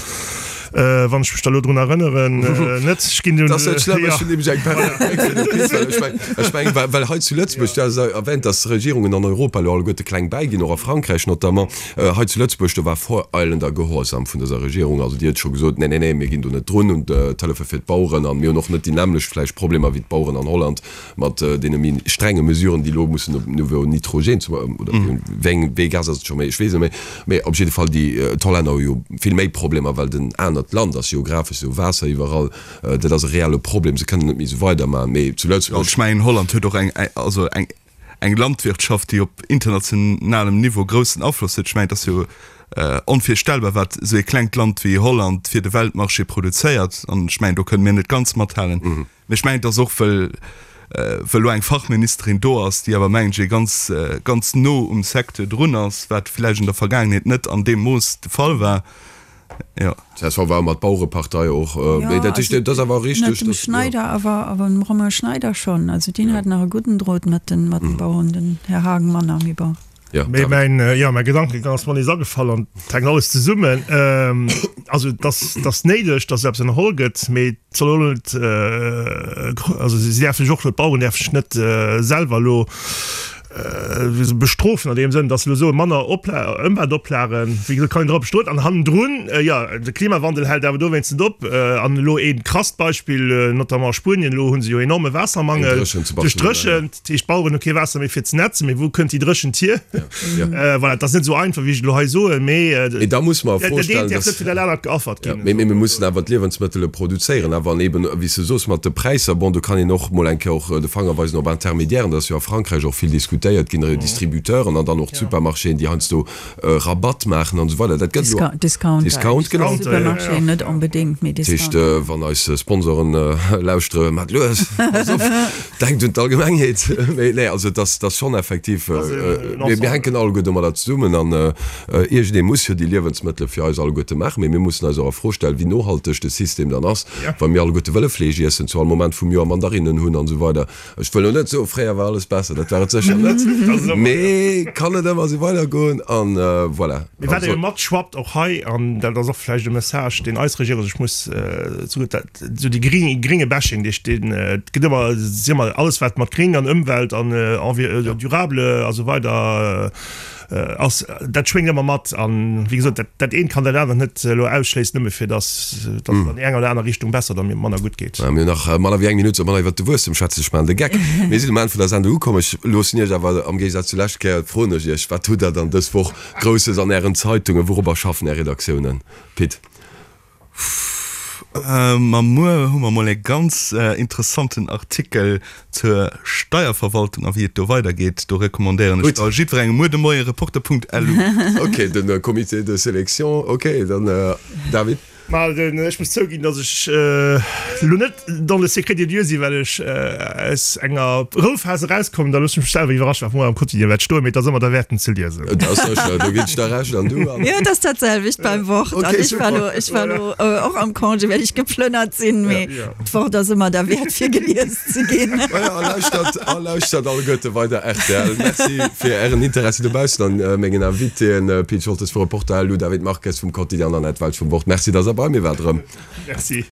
Wann ech mech da lo drun erënneren, net, ech ginn dunn. Dat ass net schlëmm, ech hunn nämlech eng perfekt Bréck fir de Pit, well ech mengen, ech mengen, well, well hei zu Lëtzebuerg, du has erwähnt, dass d'Regierungen an Europa elo alleguerte kleng bäiginn, och a Frankräich notamment. Hei zu Lëtzebuerg, do war voreilender Gehorsam vun dëser Regierung. Also déi huet scho gesot, Nee, nee, nee, mir ginn do net drun un d'Hëllefe fir d'Baueren an mir hunn och net déi nämmlecht vläicht Problemer wéi d'Baueren an Holland. Mat deene méi strenge Mesuren, déi elo mussen op Niveau Nitrogen zum, oder wéi eng, wéi ee Gas ass et scho méi, ech weess et net méi, mee op jidde Fall déi, d'Hollänner hu jo vill méi Problemer, well et en anert Land ass geographesch, se hu Waasser iwwerall, dat ass e reelle Problem, se kënnen net méi esou weidermachen, mee zu Lëtzebuerg. Ech mengen, Holland huet och eng, also eng, eng Landwirtschaft, déi op internationalem Niveau groussen Afloss huet. Ech mengen, et ass jo onvirstellbar, wat esou ee klengt Land wéi Holland fir de Weltmarché produzéiert, an ech mengen, do kënne mir net ganz mathalen. Mee ech mengen, et ass och, well well elo eng Fachministerin do ass, déi awer, mengen ech, ee ganz, ganz no um Secteur drun ass, wat vläicht an der Vergaangenheet net an deem Mooss de Fall war. Jo. Csv war ëmmer d'Bauerepartei och. Mee dat heescht, dat ass awer richteg, Net dem dass, jo. Schneider, awer, awer dem Romain Schneider schonn. Also deen hat nach e gudden Drot mat den, mat den Baueren, den Här Haagen manner, mee bon. Jo, Mee mäin, jo, mäi Gedankegang ass mer nees agefall an et hänkt alles zesummen. Also et ass, et ass néideg, datt eppes ënnerholl gëtt, mee et soll och net, also si däerfe sech och, d'Baueren däerfe sech net selwer elo bestrofen an deem Sënn, datt se elo soen, manner Opla Ëmweltoplagen, wéi gesot, kann een drop bestoen. An hannendrun, jo, de Klimawandel hält awer dowéinst net op. An elo ee krasst Beispill, notamment a Spuenien, elo hu se jo enorme Waassermangel duerch d'Dréchent. Dat heescht, d'Baueren hu kee Waasser méi fir ze nätzen, mee wou kënnt déi Dréchent hier? Voilà, et ass net esou einfach, wéi ech et elo hei soen, mee Mee da muss mer a Fro dat eent stellen, däerf net fir dat anert geaffert ginn. Mee mir mussen awer d'Liewensmëttele produzéieren. Awer an eben, wéi s de soos, mat de Präisser, bon, do kann een och mol eng Kéier och de Fanger weisen op Intermédiairen, dat ass jo a Frankräich och vill diskutéiert. redistributéiert ginn, Redistributeuren an dann och d'Supermarchéen, déi heiansdo Rabatt maachen an esou weider. Dat gëtt elo. Discounter. Discount, genau. Supermarchéen net onbedéngt, mee Discounter. Dat heescht, wann eis Sponsoren lauschtere, maacht lues, passt op, denkt un d'Allgemengheet. Mee nee, also et ass, et ass schonn effektiv, mir hänken alleguer domadder zesummen an iergendee muss jo déi Liewensmëttele fir eis alleguerte maachen. Mee mir mussen eis och a Fro stellen, wéi nohalteg de System dann ass, wa mir alleguerte wëlle Fleesch iessen, zu all Moment vum Joer Mandarinnen hunn an esou weider. Ech wëll lo net soen, fréier war alles besser, dat war et sécher net, mee kann et ëmmer esou weidergoen an voilà. Mee wat ebe matschwappt och hei, an dat ass och vläicht e Message, deen eis Regierung sech muss zougutt, dat esou dee gringe Bashing, dee deen et gëtt ëmmer, si ëmmer alles wat mat gring an Ëmwelt an durable a sou weider ass, dat schwéngt ëmmer mat. An wéi gesot, dat, dat eent kann dat anert net elo ausschléissen, nëmme fir datt datt et an déi eng oder aner Richtung besser oder manner gutt geet. Mir hunn nach manner wéi eng Minutt, soll manner iwwert de Wuesstem schwätzen. Ech maachen de Geck. Mir sinn um Enn vun der Sendung ukomm. Ech loossen Iech awer, am Géigesaz zur lescht Kéier, froen ech Iech, Wat hutt Der dann dës Woch Grousses an Ären Zeitungen? Wourobber schaffen Är Redaktiounen? Pit? Ma muer hu mer mol e ganz interessanten Artikel zur Steierverwaltung a wéi et do weidergeet. Do recommandéieren ech da jiddwerengem muer de Moie reporter.lu. Ok, den Comité de sélection, ok, dann David. Ma ech muss zouginn, datt ech elo net dans le secret des dieux sinn, well ech aus enger Rouphas erauskommen. Da loosse ech mech selwer iwwerraschen, wat muer am Quotidien wäert stoen, mee et ass ëmmer derwäert, en ze liesen. Et ass sécher, do ginn ech der Recht. An du, Anne? Jo, et ass dat selwecht beim Wort. An ech war elo, ech war elo och am Congé, well ech geplënnert sinn, mee d'Wort ass ëmmer derwäert, fir gelies ze ginn. Maja, a lauschtert, a lauschtert alleguerte weider rtl. Merci fir Ären Interessi dobaussen an mengen Invitéen, Pit Scholtes vu Reporter, Lou David Marques vum Quotidien an Annette Welsch vum Wort. Merci, dass Der bei mir waart erëm. Merci.